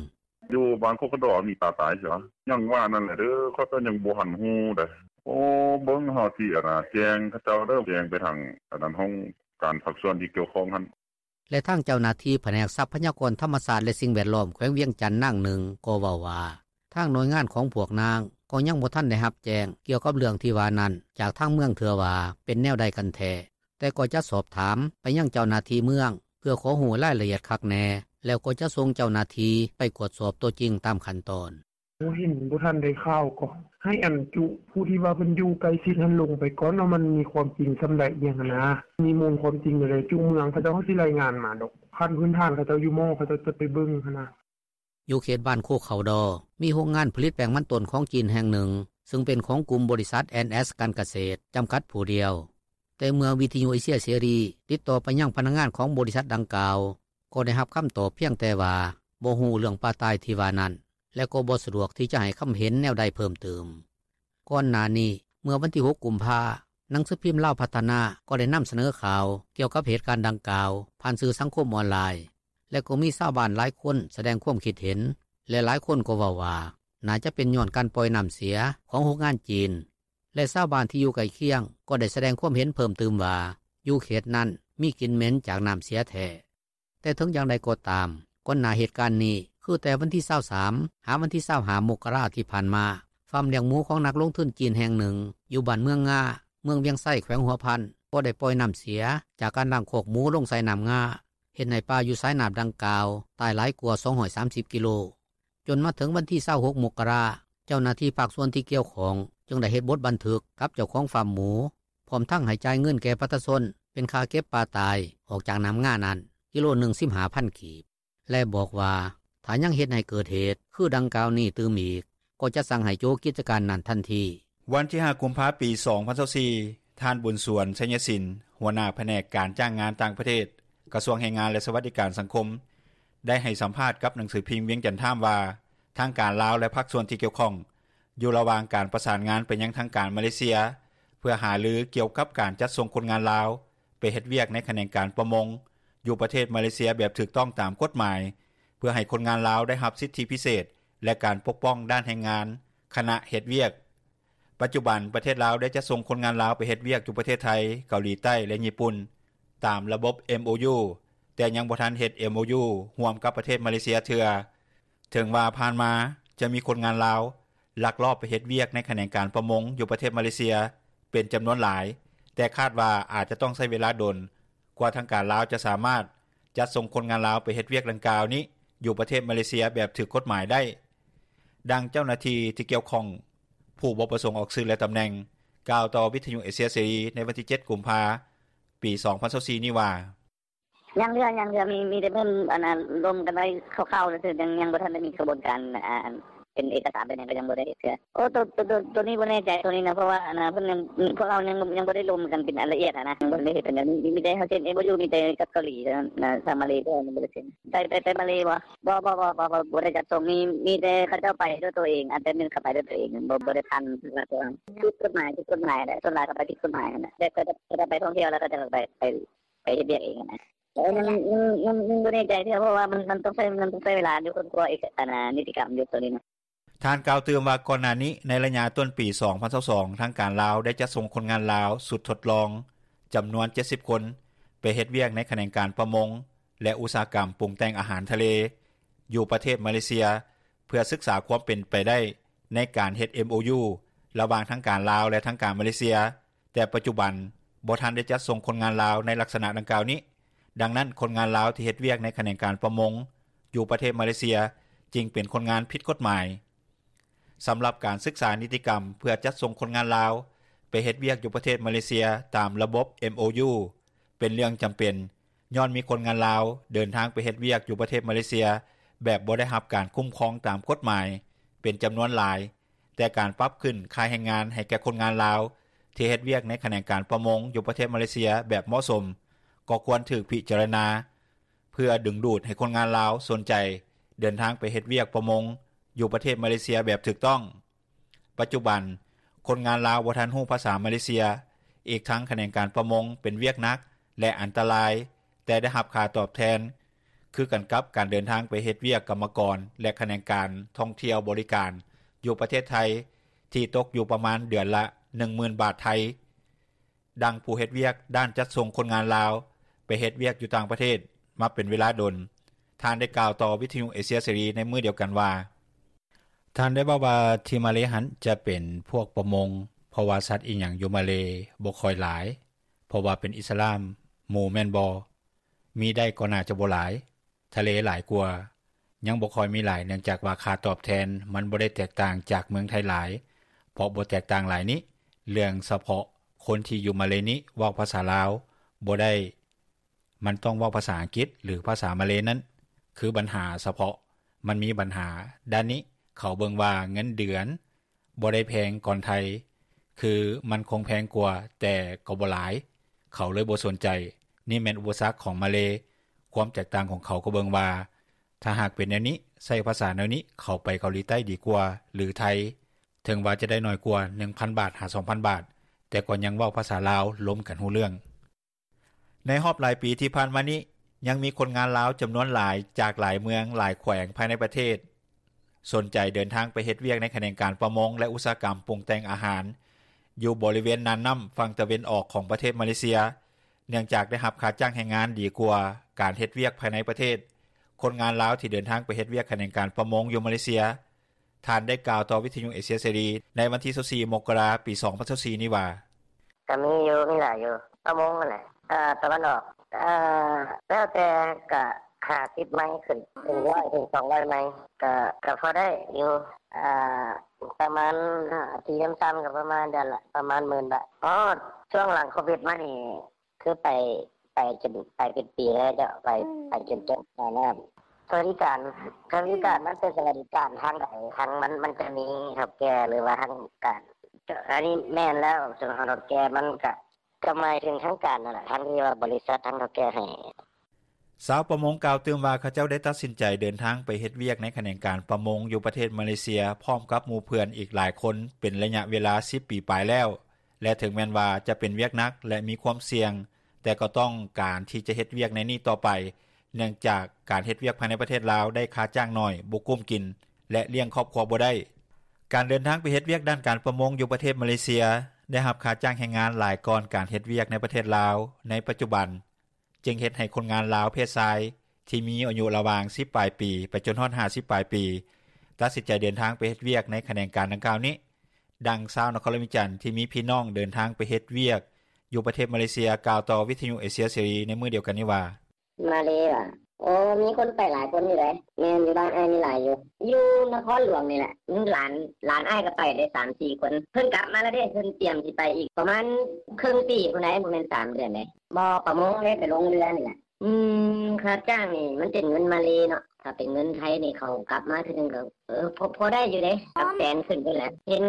ຢູ່ບ້ານໂຄກເຂົ້າດໍມີປາຕາຍຊິຫວາ? ຍັງວ່ານັ້ນແຫຼະເດີ ຂ້ອຍກໍຍັງບໍ່ທັນຮູ້ໃດ. ໂອ້ ເບິ່ງເຮົາຊິອັນນ່າແຈ້ງເຂົາເຈົ້າເດີ ແຈ້ງໄປທາງອັນນັ້ນ ຫ້ອງການພາກສ່ວນທີ່ກ່ຽວຂ້ອງຫັ້ນ. ແລະທາງເຈົ້າໜ້າທີ່ພະແນກຊັບພະຍາກອນທຳມະຊາດ ແລະສິ່ງແວດລ້ອມ ແຂວງວຽງຈັນນາງໜຶ່ງກໍເວົ້າວ່າ ທາງໜ່ວຍງານຂອງພວກນາງກໍຍັງບໍ່ທັນໄດ້ຮັບແຈ້ງກ່ຽວກັບເລື່ອງທີ່ວ່ານັ້ນຈາກທາງເມືອງເທື່ອວ່າເປັນແນວໃດກັນແທ້, ແຕ່ກໍຈະສອບຖາມໄປຍັງເຈົ້າໜ້າທີ່ເມືອງ ເພື່ອຂໍຮູ້ລາຍລະອຽດຄັກແນ່ ແລ້ວກໍຈະສົ່ງເຈົ້າໜ້າທີ່ໄປກວດສອບຕົວຈິງຕາມຂັ້ນຕອນ. ບໍ່ເຫັນ ບໍ່ທັນໄດ້ຂ່າວກໍໃຫ້ອັນຈຸຜູ້ທີ່ວ່າເພິ່ນຢູ່ໃກ້ຊິດຫັ້ນລົງໄປກ່ອນວ່າມັນມີຄວາມຈິງສ່ຳໃດອີ່ຫຍັງຫັ້ນນະ ມີມູນຄວາມຈິງແນວໃດ ຈຸເມືອງເຂົາເຈົ້າເຂົາຊິລາຍງານມາດອກ ຂັ້ນພື້ນຖານເຂົາເຈົ້າຢູ່ໝໍ້ ເຂົາເຈົ້າຈະໄປເບິ່ງຫັ້ນນະ. ຢູ່ເຂດບ້ານໂຄກເຂົ້າດໍ ມີໂຮງງານຜະລິດແປ້ງມັນຕົ້ນຂອງຈີນແຫ່ງໜຶ່ງ ຊຶ່ງເປັນຂອງກຸ່ມບໍລິສັດ ແອນ ແອສ ການກະເສດ ຈຳກັດຜູ້ດຽວ. ແຕ່ເມື່ອວິທຍຸເອເຊຍເສລີຕິດຕໍ່ໄປຍັງພະນັກງານຂອງບໍລິສັດດັ່ງກ່າວ ກໍໄດ້ຮັບຄຳຕອບພຽງແຕ່ວ່າບໍ່ຮູ້ເລື່ອງປາຕາຍທີ່ວ່ານັ້ນ ແລະກໍບໍ່ສະດວກທີ່ຈະໃຫ້ຄຳເຫັນແນວໃດເພີ່ມຕື່ມ. ກ່ອນໜ້ານີ້ ເມື່ອວັນທີ 6 ກຸມພາ ໜັງສືພິມລາວພັດທະນາກໍໄດ້ນຳສະເໜີຂ່າວກ່ຽວກັບເຫດການດັ່ງກ່າວຜ່ານສື່ສັງຄົມອອນລາຍ ແລະກໍມີຊາວບ້ານຫຼາຍຄົນສະແດງຄວາມຄິດເຫັນ ແລະຫຼາຍຄົນກໍເວົ້າວ່າ ໜ້າຈະເປັນຍ້ອນການປ່ອຍນ້ຳເສຍຂອງໂຮງງານຈີນ ແລະຊາວບ້ານທີ່ຢູ່ໃກ້ຄຽງກໍໄດ້ສະແດງຄວາມເຫັນເພີ່ມຕື່ມວ່າ ຢູ່ເຂດນັ້ນມີກິ່ນເໝັນຈາກນ້ຳເສຍແທ້. ແຕ່ເຖິງຢ່າງໃດກໍຕາມ ກ່ອນໜ້າເຫດການນີ້ ຄືແຕ່ວັນທີ 23 ຫາວັນທີ 25 ມົກກະລາທີ່ຜ່ານມາ ຟາມລ້ຽງໝູຂອງນັກລົງທຶນຈີນແຫ່ງໜຶ່ງ ຢູ່ບ້ານເມືອງງາ ເມືອງວຽງໄຊ ແຂວງຫົວພັນ ກໍໄດ້ປ່ອຍນໍ້າເສຍ ຈາກການລ້າງຄອກໝູລົງໃສ່ນໍ້າງາ ເຮັດໃຫ້ປາຢູ່ສາຍນໍ້າດັ່ງກ່າວ ຕາຍຫຼາຍກວ່າ 230 ກິໂລ. ຈົນມາເຖິງວັນທີ 26 ມົກກະລາ ເຈົ້າໜ້າທີ່ພາກສ່ວນທີ່ກ່ຽວຂ້ອງ ຈຶ່ງໄດ້ເຮັດບົດບັນທຶກ ກັບເຈົ້າຂອງຟາມໝູ ພ້ອມທັງໃຫ້ຈ່າຍເງິນແກ່ປະຊາຊົນ ເປັນຄ່າເກັບປາຕາຍ ອອກຈາກນໍ້າງານັ້ນ ກິໂລໜຶ່ງ 15,000 ກີບ ແລະບອກວ່າ ຖ້າຍັງເຮັດໃຫ້ເກີດເຫດ ຄືດັ່ງກ່າວນີ້ຕື່ມອີກ ກໍຈະສັ່ງໃຫ້ໂຈະກິດຈະການນັ້ນທັນທີ. ວັນທີ 5 ກຸມພາ 2024 ທ່ານ ບຸນສວນ ໄຊຍະສິນ ຫົວໜ້າພະແນກການຈ້າງງານຕ່າງປະເທດ ກະຊວງແຮງງານ ແລະສະຫວັດດີການສັງຄົມ ໄດ້ໃຫ້ສຳພາດກັບໜັງສືພິມວຽງຈັນທາມ ວ່າ ທາງການລາວ ແລະພາກສ່ວນທີ່ກ່ຽວຂ້ອງ ຢູ່ລະຫວ່າງການປະສານງານ ໄປຍັງທາງການມາເລເຊຍ ເພື່ອຫາລືກ່ຽວກັບການຈັດສົ່ງຄົນງານລາວ ໄປເຮັດວຽກໃນຂະແໜງການປະມົງ ຢູ່ປະເທດມາເລເຊຍ ແບບຖືກຕ້ອງຕາມກົດໝາຍ ເພື່ອໃຫ້ຄົນງານລາວ ໄດ້ຮັບສິດທິພິເສດ ແລະການປົກປ້ອງດ້ານແຮງງານ ຂະນະເຮັດວຽກ. ປັດຈຸບັນ ປະເທດລາວ ໄດ້ຈັດສົ່ງຄົນງານລາວ ໄປເຮັດວຽກຢູ່ປະເທດໄທ, ເກົາຫຼີໃຕ້ ແລະຍີ່ປຸ່ນ ຕາມລະບົບ MOU ແຕ່ຍັງບໍ່ທັນເຮັດ MOU ຮ່ວມກັບປະເທດມາເລເຊຍເທື່ອ. ເຖິງວ່າຜ່ານມາ ຈະມີຄົນງານລາວ ລັກລອບໄປເຮັດວຽກໃນຂະແໜງການປະມົງ ຢູ່ປະເທດມາເລເຊຍ ເປັນຈຳນວນຫຼາຍ, ແຕ່ຄາດວ່າອາດຕ້ອງໃຊ້ເວລາດົນ ກວ່າທາງການລາວ ຈະສາມາດຈັດສົ່ງຄົນງານລາວ ໄປເຮັດວຽກດັ່ງກ່າວນີ້ ຢູ່ປະເທດມາເລເຊຍ ແບບຖືກກົດໝາຍໄດ້. ດັ່ງເຈົ້າໜ້າທີ່ ທີ່ກ່ຽວຂ້ອງ ຜູ້ບໍ່ປະສົງອອກຊື່ ແລະຕຳແໜ່ງ ກ່າວຕໍ່ວິທຍຸເອເຊຍເສລີ ໃນວັນທີ 7 ກຸມພາ 2024 ນີ້ວ່າ: “ຍັງເທື່ອ ຍັງເທື່ອ ມີແຕ່ເພິ່ນລົມກັນໄວ້ຄ່າວໆ ຊື່ໆ ຍັງບໍ່ທັນໄດ້ມີຂະບວນການ ເປັນເອກກະສານ ເປັນຫຍັງ ກໍຍັງບໍ່ໄດ້ເຮັດເທື່ອ. ໂອ ໂຕນີ້ບໍ່ແນ່ໃຈ ໂຕນີ້ນະ ເພາະວ່າພວກເຮົາຍັງບໍ່ໄດ້ລົມກັນ ເປັນອັນລະອຽດຫັ້ນນະ ຍັງບໍ່ທັນໄດ້ເຮັດ ມີແຕ່ເຮົາເຊັນ MOU ມີແຕ່ກັບເກົາຫຼີ ທາງມາເລເຮົາຍັງບໍ່ໄດ້ເຊັນ. ໄປມາເລບໍ່? ບໍ່ ບໍ່ໄດ້ຈັດສົ່ງ ມີແຕ່ເຂົາເຈົ້າໄປດ້ວຍໂຕເອງ ອັນແຕ່ໜຶ່ງເຂົາໄປດ້ວຍໂຕເອງ ບໍ່ໄດ້ຜ່ານພາກລັດ. ຜິດກົດໝາຍ ຜິດກົດໝາຍແຫຼະ ສ່ວນຫຼາຍເຂົາໄປຜິດກົດໝາຍຫັ້ນແຫຼະ ແຕ່ເຂົາເຈົ້າໄປທ່ອງທ່ຽວ ແລ້ວເຂົາເຈົ້າໄປເຮັດວຽກເອງຫັ້ນນະ. ຍັງບໍ່ແນ່ໃຈເທື່ອ ເພາະວ່າມັນຕ້ອງໃຊ້ເວລາຢູ່ ຄົ້ນຄວ້ານິຕິກຳຢູ່ໂຕນີ້ນະ.” ທ່ານກ່າວຕື່ມວ່າ ກ່ອນໜ້ານີ້ ໃນໄລຍະຕົ້ນປີ 2022 ທາງການລາວ ໄດ້ຈັດສົ່ງຄົນງານລາວຊຸດທົດລອງ ຈຳນວນ 70 ຄົນ ໄປເຮັດວຽກໃນຂະແໜງການປະມົງ ແລະອຸດສາຫະກຳປຸງແຕ່ງອາຫານທະເລ ຢູ່ປະເທດມາເລເຊຍ ເພື່ອສຶກສາຄວາມເປັນໄປໄດ້ ໃນການເຮັດ MOU ລະຫວ່າງທາງການລາວ ແລະທາງການມາເລເຊຍ, ແຕ່ປັດຈຸບັນ ບໍ່ທັນໄດ້ຈັດສົ່ງຄົນງານລາວ ໃນລັກສະນະດັ່ງກ່າວນີ້. ດັ່ງນັ້ນ ຄົນງານລາວ ທີ່ເຮັດວຽກໃນຂະແໜງການປະມົງ ຢູ່ປະເທດມາເລເຊຍ ຈຶ່ງເປັນຄົນງານຜິດກົດໝາຍ. ສຳລັບການສຶກສານິຕິກຳ ເພື່ອຈັດສົ່ງຄົນງານລາວ ໄປເຮັດວຽກຢູ່ປະເທດມາເລເຊຍ ຕາມລະບົບ MOU ເປັນເລື່ອງຈຳເປັນ ຍ້ອນມີຄົນງານລາວ ເດີນທາງໄປເຮັດວຽກຢູ່ປະເທດມາເລເຊຍ ແບບບໍ່ໄດ້ຮັບການຄຸ້ມຄອງຕາມກົດໝາຍ ເປັນຈຳນວນຫຼາຍ, ແຕ່ການປັບຂຶ້ນຄ່າແຮງງານ ໃຫ້ແກ່ຄົນງານລາວ ທີ່ເຮັດວຽກໃນຂະແໜງການປະມົງ ຢູ່ປະເທດມາເລເຊຍ ແບບເໝາະສົມ ກໍຄວນຖືກພິຈາລະນາ ເພື່ອດຶງດູດໃຫ້ຄົນງານລາວ ສົນໃຈເດີນທາງໄປເຮັດວຽກປະມົງ ຢູ່ປະເທດມາເລເຊຍ ແບບຖືກຕ້ອງ. ປັດຈຸບັນ ຄົນງານລາວ ບໍ່ທັນຮູ້ພາສາມາເລເຊຍ, ອີກທັງຂະແໜງການປະມົງ ເປັນວຽກໜັກ ແລະອັນຕະລາຍ, ແຕ່ໄດ້ຮັບຄ່າຕອບແທນ ຄືກັນກັບການເດີນທາງໄປເຮັດວຽກກຳມະກອນ ແລະຂະແໜງການທ່ອງທ່ຽວບໍລິການ ຢູ່ປະເທດໄທ ທີ່ຕົກຢູ່ປະມານເດືອນລະ ໜຶ່ງໝື່ນບາດໄທ. ດັ່ງຜູ້ເຮັດວຽກດ້ານຈັດສົ່ງຄົນງານລາວ ໄປເຮັດວຽກຢູ່ຕ່າງປະເທດ ມາເປັນເວລາດົນ, ທ່ານໄດ້ກ່າວຕໍ່ວິທຍຸເອເຊຍເສລີ ໃນມື້ດຽວກັນວ່າ: “ທ່ານໄດ້ເວົ້າວ່າ ທີ່ມາເລຫັ້ນ ຈະເປັນພວກປະມົງ ເພາະວ່າສັດອີ່ຫຍັງຢູ່ມາເລ ບໍ່ຄ່ອຍຫຼາຍ ເພາະວ່າເປັນອິດສະລາມ ໝູແມ່ນບໍ່? ມີໄດ້ກໍໜ້າຈະບໍ່ຫຼາຍ ທະເລຫຼາຍກວ່າ ຍັງບໍ່ຄ່ອຍມີຫຼາຍ ເນື່ອງຈາກວ່າຄ່າຕອບແທນ ມັນບໍ່ໄດ້ແຕກຕ່າງຈາກເມືອງໄທຫຼາຍ ເພາະບໍ່ແຕກຕ່າງຫຼາຍນີ້ ເລື່ອງສະເພາະຄົນທີ່ຢູ່ມາເລນີ້ ເວົ້າພາສາລາວບໍ່ໄດ້ ມັນຕ້ອງເວົ້າພາສາອັງກິດ ຫຼືພາສາມາເລນັ້ນ ຄືບັນຫາສະເພາະ ມັນມີບັນຫາດ້ານນີ້ ເຂົາເບິ່ງວ່າເງິນເດືອນ ບໍ່ໄດ້ແພງກ່ອນໄທ ຄືມັນຄົງແພງກວ່າ ແຕ່ກໍບໍ່ຫຼາຍ ເຂົາເລີຍບໍ່ສົນໃຈ. ນີ້ແມ່ນອຸປະສັກຂອງມາເລ. ຄວາມແຕກຕ່າງຂອງເຂົາ ກໍເບິ່ງວ່າ ຖ້າຫາກເປັນແນວນີ້ ໃຊ້ພາສາແນວນີ້ ເຂົາໄປເກົາຫຼີໃຕ້ດີກວ່າ ຫຼືໄທ ເຖິງວ່າຈະໄດ້ໜ້ອຍກວ່າ ໜຶ່ງພັນບາດ ຫາ ສອງພັນບາດ ແຕ່ກໍຍັງເວົ້າພາສາລາວ ລົມກັນຮູ້ເລື່ອງ.” ໃນຮອບຫຼາຍປີທີ່ຜ່ານມານີ້ ຍັງມີຄົນງານລາວຈຳນວນຫຼາຍ ຈາກຫຼາຍເມືອງ ຫຼາຍແຂວງພາຍໃນປະເທດ ສົນໃຈເດີນທາງໄປເຮັດວຽກ ໃນຂະແໜງການປະມົງ ແລະອຸດສາຫະກຳປຸງແຕ່ງອາຫານ ຢູ່ບໍລິເວນນ່ານນໍ້າຝັ່ງຕາເວັນອອກ ຂອງປະເທດມາເລເຊຍ ເນື່ອງຈາກໄດ້ຮັບຄ່າຈ້າງແຮງງານດີກວ່າ ການເຮັດວຽກພາຍໃນປະເທດ. ຄົນງານລາວ ທີ່ເດີນທາງໄປເຮັດວຽກ ຂະແໜງການປະມົງ ຢູ່ມາເລເຊຍ ທ່ານໄດ້ກ່າວຕໍ່ວິທຍຸເອເຊຍເສລີ ໃນວັນທີ 24 ມົກກະລາ 2024 ນີ້ວ່າ: “ກະມີຢູ່ ມີຫຼາຍຢູ່ ປະມົງຫັ້ນແຫຼະ ເອີ ຕາເວັນອອກ ເອີ ແລ້ວແຕ່ ກະຫ້າສິບໄມຂຶ້ນ ເປັນຮ້ອຍເຖິງສອງຮ້ອຍໄມ ກະ ກະພໍໄດ້ຢູ່ ເອີ ປະມານ ທີ່ຕ່ຳໆ ກະປະມານເດືອນລະປະມານໝື່ນບາດ. ອໍ ຊ່ວງຫຼັງໂຄວິດມານີ້ ຄືໄປ ໄປຈົນ ໄປເປັນປີແລ້ວເຈົ້າ ໄປ ໄປຈົນຈົບໃຕ້ນ້ຳ. ສະຫວັດດີການ ສະຫວັດດີການ ມັນເປັນສະຫວັດດີການທາງໃດ? ທາງມັນ ມັນຈະມີເຖົ້າແກ່ ຫຼືວ່າທາງການ? ອັນນີ້ແມ່ນແລ້ວ ສ່ວນຂອງເຖົ້າແກ່ມັນກະ ກະໝາຍເຖິງທາງການຫັ້ນແຫຼະ ທາງທີ່ວ່າບໍລິສັດ ທາງເຖົ້າແກ່ໃຫ້. ຊາວປະມົງກ່າວຕື່ມວ່າ ເຂົາເຈົ້າໄດ້ຕັດສິນໃຈເດີນທາງໄປເຮັດວຽກໃນຂະແໜງການປະມົງຢູ່ປະເທດມາເລເຊຍ ພ້ອມກັບໝູ່ເພື່ອນອີກຫຼາຍຄົນ ເປັນໄລຍະເວລາສິບປີປາຍແລ້ວ ແລະ ເຖິງແມ່ນວ່າຈະເປັນວຽກໜັກ ແລະ ມີຄວາມສ່ຽງ ແຕ່ກໍຕ້ອງການທີ່ຈະເຮັດວຽກໃນນີ້ຕໍ່ໄປ ເນື່ອງຈາກການເຮັດວຽກພາຍໃນປະເທດລາວໄດ້ຄ່າຈ້າງໜ້ອຍ, ບໍ່ກຸ້ມກິນ ແລະ ລ້ຽງຄອບຄົວບໍ່ໄດ້. ການເດີນທາງໄປເຮັດວຽກດ້ານການປະມົງຢູ່ປະເທດມາເລເຊຍ ໄດ້ຮັບຄ່າຈ້າງແຮງງານຫຼາຍກ່ອນການເຮັດວຽກໃນປະເທດລາວໃນປັດຈຸບັນ ຈຶ່ງເຮັດໃຫ້ຄົນງານລາວເພດຊາຍທີ່ມີອາຍຸລະຫວ່າງສິບປາຍປີໄປຈົນຮອດຫ້າສິບປາຍປີ ຕັດສິນໃຈເດີນທາງໄປເຮັດວຽກໃນຂະແໜງການດັ່ງກ່າວນີ້. ດັ່ງຊາວນະຄອນຫຼວງວຽງຈັນທີ່ມີພີ່ນ້ອງເດີນທາງໄປເຮັດວຽກຢູ່ປະເທດມາເລເຊຍ ກ່າວຕໍ່ວິທະຍຸເອເຊຍເສລີໃນມື້ດຽວກັນນີ້ວ່າ: ມາເລຫວາ? ໂອ ມີຄົນໄປຫຼາຍຄົນຢູ່ໃດ໋. ແມ່ນ ຢູ່ບ້ານອ້າຍມີຫຼາຍຢູ່ ຢູ່ນະຄອນຫຼວງນີ້ແຫຼະ. ຫຼານ ຫຼານອ້າຍກໍໄປໄດ້ສາມສີ່ຄົນ ເພິ່ນກັບມາແລ້ວເດ້ ເພິ່ນຕຽມຊິໄປອີກປະມານເຄິ່ງປີພຸ້ນໃດ໋ ບໍ່ແມ່ນສາມເດືອນໃດ໋. ບໍ່ ປະມົງເດ້ ໄປລົງເຮືອນີ້ແຫຼະ. ອືມ ຄ່າຈ້າງນີ້ມັນເປັນເງິນມາເລເນາະ ຖ້າເປັນເງິນໄທນີ້ ເຂົາກັບມາເທື່ອໜຶ່ງກໍ ເອີ ພໍ ພໍໄດ້ຢູ່ເດ້ ຫຼັກແສນຂຶ້ນພຸ້ນແຫຼະ. ເຫັນ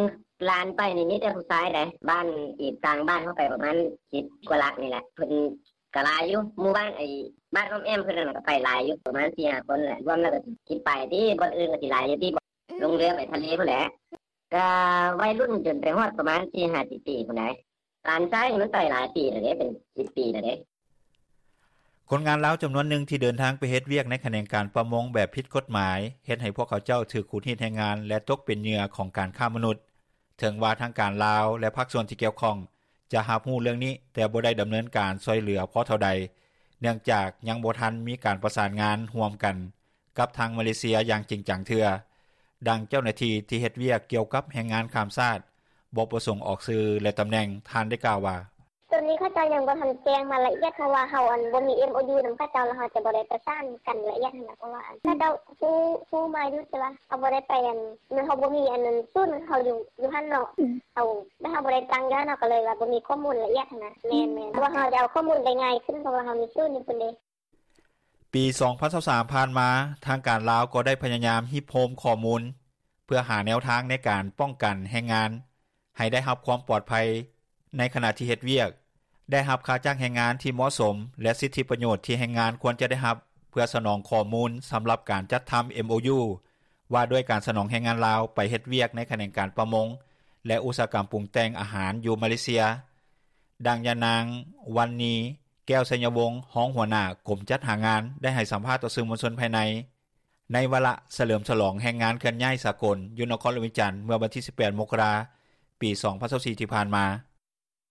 ຫຼານໄປນີ້ມີແຕ່ຜູ້ຊາຍໃດ໋ ບ້ານອີກຕ່າງບ້ານເຮົາໄປປະມານສິບກວ່າຫຼັກນີ້ແຫຼະ ເພິ່ນ ກະຫຼາຍຢູ່ ໝູ່ບ້ານ ໄອ້ ບ້ານອ້ອມແອ້ມເພິ່ນນັ້ນກະໄປຫຼາຍຢູ່ ປະມານສີ່ຫ້າຄົນແຫຼະ ລວມແລ້ວກະຊິໄປຕິ ບ່ອນອື່ນກະຊິຫຼາຍຢູ່ຕິ ລົງເຮືອໄປທະເລພຸ້ນແຫຼະ. ກະໄວລຸ້ນຈົນໄປຮອດປະມານສີ່ຫ້າສິບປີພຸ້ນໃດ໋. ຫຼານຊາຍນີ້ມັນໄປຫຼາຍປີແລ້ວເດ້ ເປັນສິບປີແລ້ວເດ້. ຄົນງານລາວຈຳນວນໜຶ່ງທີ່ເດີນທາງໄປເຮັດວຽກໃນຂະແໜງການປະມົງແບບຜິດກົດໝາຍ ເຮັດໃຫ້ພວກເຂົາເຈົ້າຖືກຂູດຮີດແຮງງານ ແລະ ຕົກເປັນເຫຍື່ອຂອງການຄ້າມະນຸດ. ເຖິງວ່າທາງການລາວ ແລະ ພາກສ່ວນທີ່ກ່ຽວຂ້ອງຈະຮັບຮູ້ເລື່ອງນີ້ ແຕ່ບໍ່ໄດ້ດຳເນີນການຊ່ອຍເຫຼືອພໍເທົ່າໃດ ເນື່ອງຈາກຍັງບໍ່ທັນມີການປະສານງານຮ່ວມກັນກັບທາງມາເລເຊຍຢ່າງຈິງຈັງເທື່ອ. ດັ່ງເຈົ້າໜ້າທີ່ທີ່ເຮັດວຽກກ່ຽວກັບແຮງງານຂ້າມຊາດ ບໍ່ປະສົງອອກຊື່ ແລະ ຕຳແໜ່ງ ທ່ານໄດ້ກ່າວວ່າ: ໂຕນີ້ເຂົາເຈົ້າຍັງບໍ່ທັນແຈ້ງມາລະອຽດ ເພາະວ່າເຮົາ ອັນ ບໍ່ມີເອັມໂອຢູນຳເຂົາເຈົ້າ ແລ້ວເຮົາຈະບໍ່ໄດ້ປະສານກັນລະອຽດຫັ້ນນະ ເພາະວ່າ ອັນ ເຂົາເຈົ້າຮູ້ ຮູ້ມາຢູ່ ແຕ່ວ່າເຮົາບໍ່ໄດ້ໄປ ອັນ ເຮົາບໍ່ມີ ອັນ ສູນເຮົາຢູ່ ຢູ່ຫັ້ນເນາະ ເຮົາ ແລະ ເຮົາບໍ່ໄດ້ຕັ້ງຢູ່ຫັ້ນ ເຮົາກະເລີຍວ່າບໍ່ມີຂໍ້ມູນລະອຽດຫັ້ນນະ. ແມ່ນໆ ເພາະວ່າເຮົາຈະເອົາຂໍ້ມູນໄປງ່າຍຂຶ້ນ ເພາະວ່າເຮົາມີສູນຢູ່ພຸ້ນເດ້. ປີສອງພັນຊາວສາມຜ່ານມາ ທາງການລາວກໍໄດ້ພະຍາຍາມຮິບໂຮມຂໍ້ມູນ ເພື່ອຫາແນວທາງໃນການປ້ອງກັນແຮງງານໃຫ້ໄດ້ຮັບຄວາມປອດໄພໃນຂະນະທີ່ເຮັດວຽກ, ໄດ້ຮັບຄ່າຈ້າງແຮງງານທີ່ເໝາະສົມ ແລະ ສິດທິປະໂຫຍດທີ່ແຮງງານຄວນຈະໄດ້ຮັບ ເພື່ອສະໜອງຂໍ້ມູນສຳລັບການຈັດທຳເອັມໂອຢູ ວ່າດ້ວຍການສະໜອງແຮງງານລາວໄປເຮັດວຽກໃນຂະແໜງການປະມົງ ແລະ ອຸດສາຫະກຳປຸງແຕ່ງອາຫານຢູ່ມາເລເຊຍ. ດັ່ງຍານາງ ວັນນີ ແກ້ວໄຊຍະວົງ ຮອງຫົວໜ້າກົມຈັດຫາງານ ໄດ້ໃຫ້ສຳພາດຕໍ່ສື່ມວນຊົນພາຍໃນ ໃນວາລະສະເຫຼີມສະຫຼອງແຮງງານເຄື່ອນຍ້າຍສາກົນຢູ່ນະຄອນຫຼວງວຽງຈັນ ເມື່ອວັນທີສິບແປດ ມົກກະລາ ປີສອງພັນຊາວສີ່ ທີ່ຜ່ານມາ.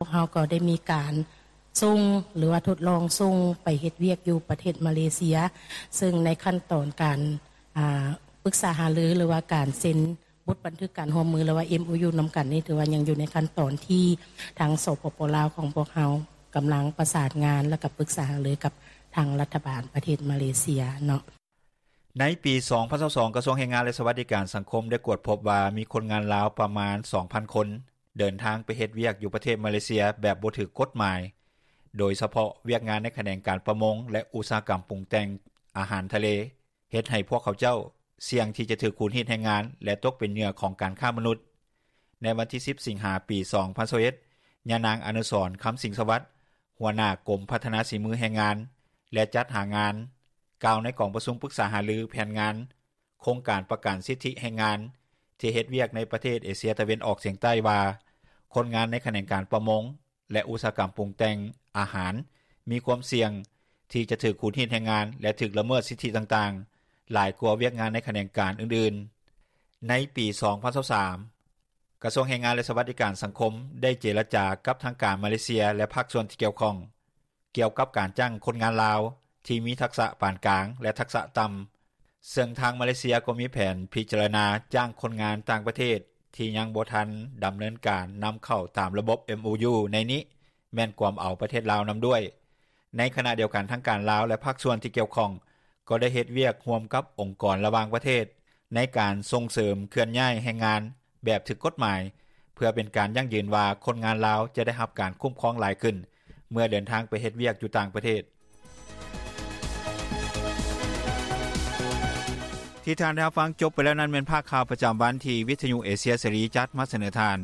ພວກເຮົາກໍໄດ້ມີການສົ່ງ ຫຼືວ່າທົດລອງສົ່ງໄປເຮັດວຽກຢູ່ປະເທດມາເລເຊຍ ເຊິ່ງໃນຂັ້ນຕອນການ ອາ ປຶກສາຫາລື ຫຼືວ່າການເຊັນບົດບັນທຶກການຮ່ວມມື ຫຼືວ່າເອັມໂອຢູນຳກັນນີ້ ຖືວ່າຍັງຢູ່ໃນຂັ້ນຕອນທີ່ທາງ ສປປ ລາວ ຂອງພວກເຮົາກຳລັງປະສານງານ ແລະ ກະປຶກສາຫາລືກັບທາງລັດຖະບານປະເທດມາເລເຊຍເນາະ. ໃນປີສອງພັນຊາວສອງ ກະຊວງແຮງງານ ແລະ ສະຫວັດດີການສັງຄົມ ໄດ້ກວດພົບວ່າມີຄົນງານລາວປະມານສອງພັນຄົນ ເດີນທາງໄປເຮັດວຽກຢູ່ປະເທດມາເລເຊຍແບບບໍ່ຖືກກົດໝາຍ ໂດຍສະເພາະວຽກງານໃນຂະແໜງການປະມົງ ແລະ ອຸດສາຫະກຳປຸງແຕ່ງອາຫານທະເລ ເຮັດໃຫ້ພວກເຂົາເຈົ້າສ່ຽງທີ່ຈະຖືກຂູດຮີດແຮງງານ ແລະ ຕົກເປັນເຫຍື່ອຂອງການຄ້າມະນຸດ. ໃນວັນທີສິບ ສິງຫາ ປີສອງພັນຊາວເອັດ ຍານາງ ອະນຸສອນ ຄຳສິງສະຫວັດ ຫົວໜ້າກົມພັດທະນາສີມືແຮງງານ ແລະ ຈັດຫາງານ ກ່າວໃນກອງປະຊຸມປຶກສາຫາລືແຜນງານໂຄງການປະກັນສິດທິແຮງງານທີ່ເຮັດວຽກໃນປະເທດເອເຊຍຕາເວັນອອກສຽງໃຕ້ວ່າ ຄົນງານໃນຂະແໜງການປະມົງ ແລະ ອຸດສາຫະກຳປຸງແຕ່ງອາຫານ ມີຄວາມສ່ຽງທີ່ຈະຖືກຂູດຮີດແຮງງານ ແລະ ຖືກລະເມີດສິດທິຕ່າງໆ ຫຼາຍກວ່າວຽກງານໃນຂະແໜງການອື່ນໆ. ໃນປີສອງພັນຊາວສາມ ກະຊວງແຮງງານ ແລະ ສະຫວັດດີການສັງຄົມ ໄດ້ເຈລະຈາກັບທາງການມາເລເຊຍ ແລະ ພາກສ່ວນທີ່ກ່ຽວຂ້ອງ ກ່ຽວກັບການຈ້າງຄົນງານລາວທີ່ມີທັກສະປານກາງ ແລະ ທັກສະຕ່ຳ, ເຊິ່ງທາງມາເລເຊຍກໍມີແຜນພິຈາລະນາຈ້າງຄົນງານຕ່າງປະເທດທີ່ຍັງບໍ່ທັນດຳເນີນການນຳເຂົ້າຕາມລະບົບເອັມໂອຢູໃນນີ້ ແມ່ນກວມເອົາປະເທດລາວນຳດ້ວຍ. ໃນຂະນະດຽວກັນ ທາງການລາວ ແລະ ພາກສ່ວນທີ່ກ່ຽວຂ້ອງ ກໍໄດ້ເຮັດວຽກຮ່ວມກັບອົງກອນລະຫວ່າງປະເທດ ໃນການສົ່ງເສີມເຄື່ອນຍ້າຍແຮງງານແບບຖືກກົດໝາຍ ເພື່ອເປັນການຢັ້ງຢືນວ່າຄົນງານລາວຈະໄດ້ຮັບການຄຸ້ມຄອງຫຼາຍຂຶ້ນ ເມື່ອເດີນທາງໄປເຮັດວຽກຢູ່ຕ່າງປະເທດ. ທີ່ທ່ານໄດ້ຮັບຟັງຈົບໄປແລ້ວນັ້ນ ແມ່ນພາກຂ່າວປະຈຳວັນທີ່ວິທະຍຸເອເຊຍເສລີຈັດມາສະເໜີທ່ານ.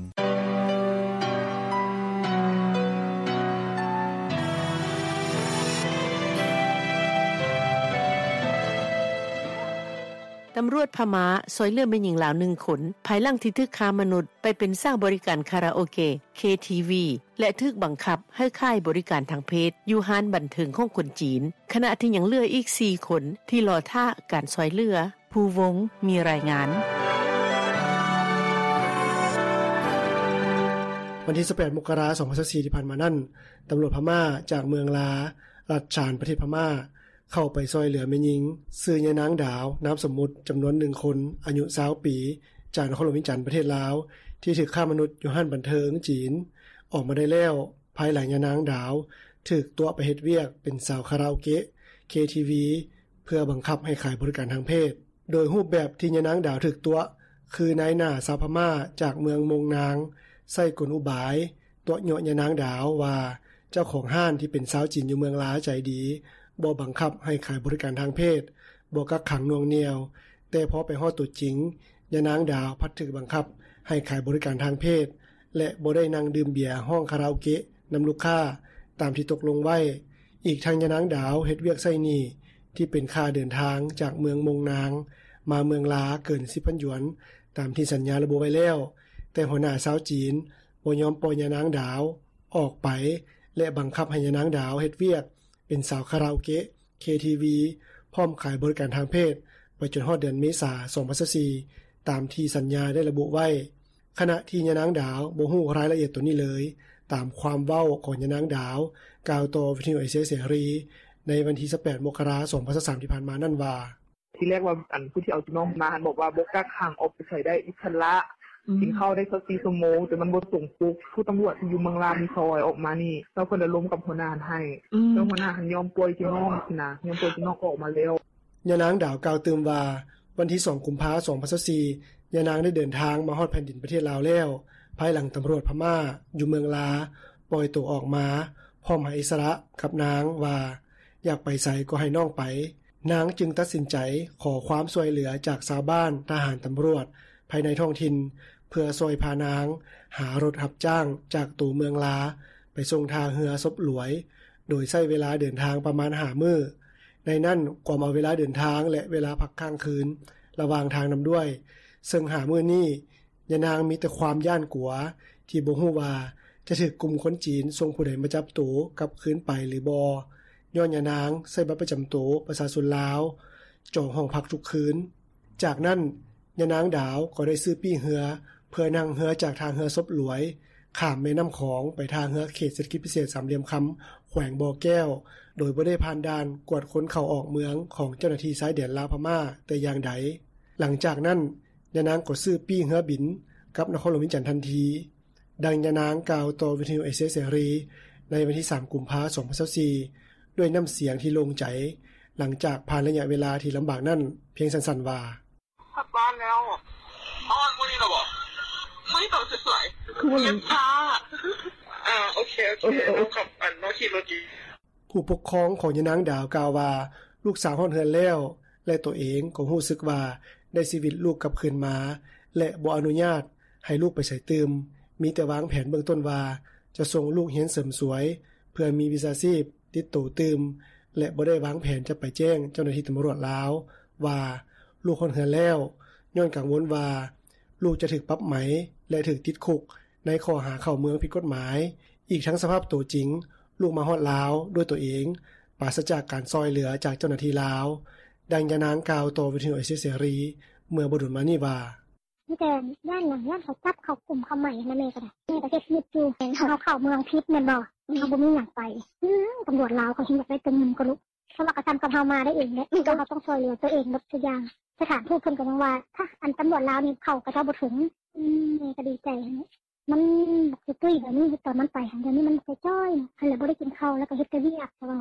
ຕຳຫຼວດພະມ້າຊ່ອຍເຫຼືອແມ່ຍິງລາວໜຶ່ງຄົນ ພາຍຫຼັງທີ່ຖືກຄ້າມະນຸດໄປເປັນສາວບໍລິການຄາຣາໂອເກະ ເຄທີວີ ແລະ ຖືກບັງຄັບໃຫ້ຂາຍບໍລິການທາງເພດຢູ່ຮ້ານບັນເທີງຂອງຄົນຈີນ, ຂະນະທີ່ຍັງເຫຼືອອີກສີ່ຄົນທີ່ລໍຖ້າການຊ່ອຍເຫຼືອ. ພູວົງ ມີລາຍງານ. ວັນທີຊາວແປດ ມົກກະລາ ສອງພັນຊາວສີ່ ທີ່ຜ່ານມານັ້ນ, ຕຳຫຼວດພະມ້າຈາກເມືອງລາ ລັດຊານ ປະເທດພະມ້າ ເຂົ້າໄປຊ່ອຍເຫຼືອແມ່ຍິງ ຊື່ຍານາງດາວ ນາມສົມມຸດ ຈຳນວນໜຶ່ງຄົນ ອາຍຸຊາວປີ ຈາກນະຄອນຫຼວງວຽງຈັນ ປະເທດລາວ ທີ່ຖືກຄ້າມະນຸດຢູ່ຮ້ານບັນເທີງຈີນ ອອກມາໄດ້ແລ້ວ ພາຍຫຼັງຍານາງດາວຖືກຕົວະໄປເຮັດວຽກເປັນສາວຄາຣາໂອເກະ ເຄທີວີ ເພື່ອບັງຄັບໃຫ້ຂາຍບໍລິການທາງເພດ. ໂດຍຮູບແບບທີ່ຍານາງດາວຖືກຕົວະ ຄືນາຍໜ້າຊາວພະມ້າຈາກເມືອງມົງນາງ ໃຊ້ກົນອຸບາຍຕົວະຍົວະຍານາງດາວວ່າ ເຈົ້າຂອງຮ້ານທີ່ເປັນຊາວຈີນຢູ່ເມືອງລາໃຈດີ ບໍ່ບັງຄັບໃຫ້ຂາຍບໍລິການທາງເພດ, ບໍ່ກັກຂັງໜ່ວງໜ່ຽວ, ແຕ່ພໍໄປຮອດຕົວຈິງ ຍານາງດາວພັດຖືກບັງຄັບໃຫ້ຂາຍບໍລິການທາງເພດ ແລະ ບໍ່ໄດ້ນັ່ງດື່ມເບຍ ຮ້ອງຄາຣາໂອເກະນຳລູກຄ້າຕາມທີ່ຕົກລົງໄວ້. ອີກທັງຍານາງດາວເຮັດວຽກໃຊ້ໜີ້ທີ່ເປັນຄ່າເດີນທາງຈາກເມືອງມົງນາງມາເມືອງລາເກີນສິບພັນຢວນ ຕາມທີ່ສັນຍາລະບຸໄວ້ແລ້ວ, ແຕ່ຫົວໜ້າຊາວຈີນບໍ່ຍອມປ່ອຍຍານາງດາວອອກໄປ ແລະ ບັງຄັບໃຫ້ຍານາງດາວເຮັດວຽກເປັນສາວຄາຣາໂອເກະ ເຄທີວີ ພ້ອມຂາຍບໍລິການທາງເພດ ໄປຈົນຮອດເດືອນເມສາ ສອງພັນຊາວສີ່ ຕາມທີ່ສັນຍາໄດ້ລະບຸໄວ້. ຂະນະທີ່ຍານາງດາວບໍ່ຮູ້ລາຍລະອຽດໂຕນີ້ເລີຍ, ຕາມຄວາມເວົ້າຂອງຍານາງດາວ ກ່າວຕໍ່ວິທະຍຸເອເຊຍເສລີ ໃນວັນທີຊາວແປດ ມົກກະລາ ສອງພັນຊາວສາມ ທີ່ຜ່ານມານັ້ນວ່າ: ທີແລກວ່າ ອັນຜູ້ທີ່ເອົາຈຸນ້ອງມາຫັ້ນບອກວ່າບໍ່ກັກຂັງ ອອກໄປໃສໄດ້ອິດສະຫຼະ ອືມ ກິນເຂົ້າໄດ້ຊາວສີ່ຊົ່ວໂມງ ແຕ່ມັນບໍ່ຕົງປົກ. ຜູ້ຕຳຫຼວດທີ່ຢູ່ເມືອງລາດນີ້ຊ່ອຍອອກມານີ້ ແລ້ວເພິ່ນລະລົມກັບຫົວໜ້າຫັ້ນໃຫ້ ອືມ ແລ້ວຫົວໜ້າຫັ້ນຍອມປ່ອຍຈຸນ້ອງຊີ້ນະ ຍອມປ່ອຍຈຸນ້ອງອອກມາແລ້ວ. ຍານາງດາວກ່າວຕື່ມວ່າ ວັນທີສອງ ກຸມພາ ສອງພັນຊາວສີ່ ຍານາງໄດ້ເດີນທາງມາຮອດແຜ່ນດິນປະເທດລາວແລ້ວ ພາຍຫຼັງຕຳຫຼວດພະມ້າຢູ່ເມືອງລາປ່ອຍໂຕອອກມາ ພ້ອມໃຫ້ອິດສະຫຼະກັບນາງວ່າ ຢາກໄປໃສກໍໃຫ້ນ້ອງໄປ. ນາງຈຶ່ງຕັດສິນໃຈຂໍຄວາມຊ່ວຍເຫຼືອຈາກຊາວບ້ານ, ທະຫານ, ຕຳຫຼວດພາຍໃນທ້ອງຖິ່ນ ເພື່ອຊ່ອຍພານາງຫາລົດຮັບຈ້າງຈາກໂຕເມືອງລາ ໄປສົ່ງທ່າເຮືອສົບຫຼວຍ ໂດຍໃຊ້ເວລາເດີນທາງປະມານຫ້າມື້. ໃນນັ້ນກວມເອົາເວລາເດີນທາງ ແລະ ເວລາພັກຄ້າງຄືນລະຫວ່າງທາງນຳດ້ວຍ, ເຊິ່ງຫ້າມື້ນີ້ ຍານາງມີແຕ່ຄວາມຢ້ານກົວ ທີ່ບໍ່ຮູ້ວ່າຈະຖືກກຸ່ມຄົນຈີນສົ່ງຜູ້ໃດມາຈັບໂຕກັບຄືນໄປຫຼືບໍ່, ຍ້ອນຍານາງໃຊ້ບັດປະຈຳໂຕປະຊາຊົນລາວ ຈອງຫ້ອງພັກທຸກຄືນ. ຈາກນັ້ນ ຍານາງດາວກໍໄດ້ຊື້ປີ້ເຮືອ ເພື່ອນັ່ງເຮືອຈາກທ່າເຮືອສົບຫຼວຍ ຂ້າມແມ່ນ້ຳຂອງໄປທ່າເຮືອເຂດເສດຖະກິດພິເສດສາມຫຼ່ຽມຄຳ ແຂວງບໍ່ແກ້ວ ໂດຍບໍ່ໄດ້ຜ່ານດ່ານກວດຄົນເຂົ້າອອກເມືອງຂອງເຈົ້າໜ້າທີ່ຊາຍແດນລາວພະມ້າແຕ່ຢ່າງໃດ. ຫຼັງຈາກນັ້ນ ຍານາງກໍຊື້ປີ້ເຮືອບິນກັບນະຄອນຫຼວງວຽງຈັນທັນທີ. ດັ່ງຍານາງກ່າວຕໍ່ວິທະຍຸເອເຊຍເສລີໃນວັນທີສາມ ກຸມພາ ສອງພັນຊາວສີ່ ດ້ວຍນ້ຳສຽງທີ່ໂລ່ງໃຈ ຫຼັງຈາກຜ່ານໄລຍະເວລາທີ່ລຳບາກນັ້ນພຽງສັ້ນໆວ່າ: ຮອດບ້ານແລ້ວ. ຮອດມື້ນີ້ລະບໍ? ມື້ນີ້ຕອນສວຍໆ. ຄືວ່າ ເຈັບຂາ. ອ່າ ໂອເຄ ໂອເຄ ເອີ ເອີ ເຮົາຂັບ ອັນ ເຮົາຂີ່ລົດຢູ່. ຜູ້ປົກຄອງຂອງຍານາງດາວກ່າວວ່າ ລູກສາວຮອດເຮືອນແລ້ວ ແລະ ຕົວເອງກໍຮູ້ສຶກວ່າໄດ້ຊີວິດລູກກັບຄືນມາ ແລະ ບໍ່ອະນຸຍາດໃຫ້ລູກໄປໃສຕື່ມ, ມີແຕ່ວາງແຜນເບື້ອງຕົ້ນວ່າຈະສົ່ງລູກຮຽນເສີມສວຍ ເພື່ອມີວິຊາຊີບຕິດໂຕຕື່ມ ແລະ ບໍ່ໄດ້ວາງແຜນຈະໄປແຈ້ງເຈົ້າໜ້າທີ່ຕຳຫຼວດລາວວ່າລູກຮອດເຮືອນແລ້ວ, ຍ້ອນກັງວົນວ່າລູກຈະຖືກປັບໃໝ ແລະ ຖືກຕິດຄຸກໃນຂໍ້ຫາເຂົ້າເມືອງຜິດກົດໝາຍ. ອີກທັງສະພາບໂຕຈິງ ລູກມາຮອດລາວດ້ວຍຕົວເອງ ປາສະຈາກການຊ່ອຍເຫຼືອຈາກເຈົ້າໜ້າທີ່ລາວ. ດັ່ງຍານາງກ່າວຕໍ່ວິທະຍຸເອເຊຍເສລີເມື່ອບໍ່ດົນມານີ້ວ່າ: ມີແຕ່ຢ້ານຫຍັງ? ຢ້ານເຂົາຈັບ ເຂົາກຸມ ເຂົາໄໝຫັ້ນນະ. ແມ່ກໍໄດ້ ແມ່ກໍເຮັດວຽກຢູ່. ເຮົາເຂົ້າເມືອງຜິດແມ່ນບໍ່? ເຮົາບໍ່ມີຫຍັງໄປ. ອືມ ຕຳຫຼວດລາວເຂົາຊິຢາກໄດ້ແຕ່ເງິນກວ່າລູກ. ເຂົາວ່າກໍສ່ຳກັບເຮົາມາໄດ້ເອງແຫຼະ, ແຕ່ເຮົາຕ້ອງຊ່ວຍເຫຼືອຕົວເອງເບິດທຸກຢ່າງ. ສະຖານທູດເພິ່ນກໍຍັງວ່າ ຖ້າອັນຕຳຫຼວດລາວນີ້ເຂົ້າ ເຂົາເຈົ້າບໍ່ເຖິງ. ອືມ ແມ່ກໍດີໃຈຫັ້ນແຫຼະ. ມັນບໍ່ຄືຕຸ້ຍແບບນີ້ ຕອນມັນໄປຫັ້ນ ດຽວນີ້ມັນຈ່ອຍໆ ຫັ້ນແຫຼະ ບໍ່ໄດ້ກິນເຂົ້າ ແລ້ວກໍເຮັດແຕ່ວຽກ ແຕ່ວ່າ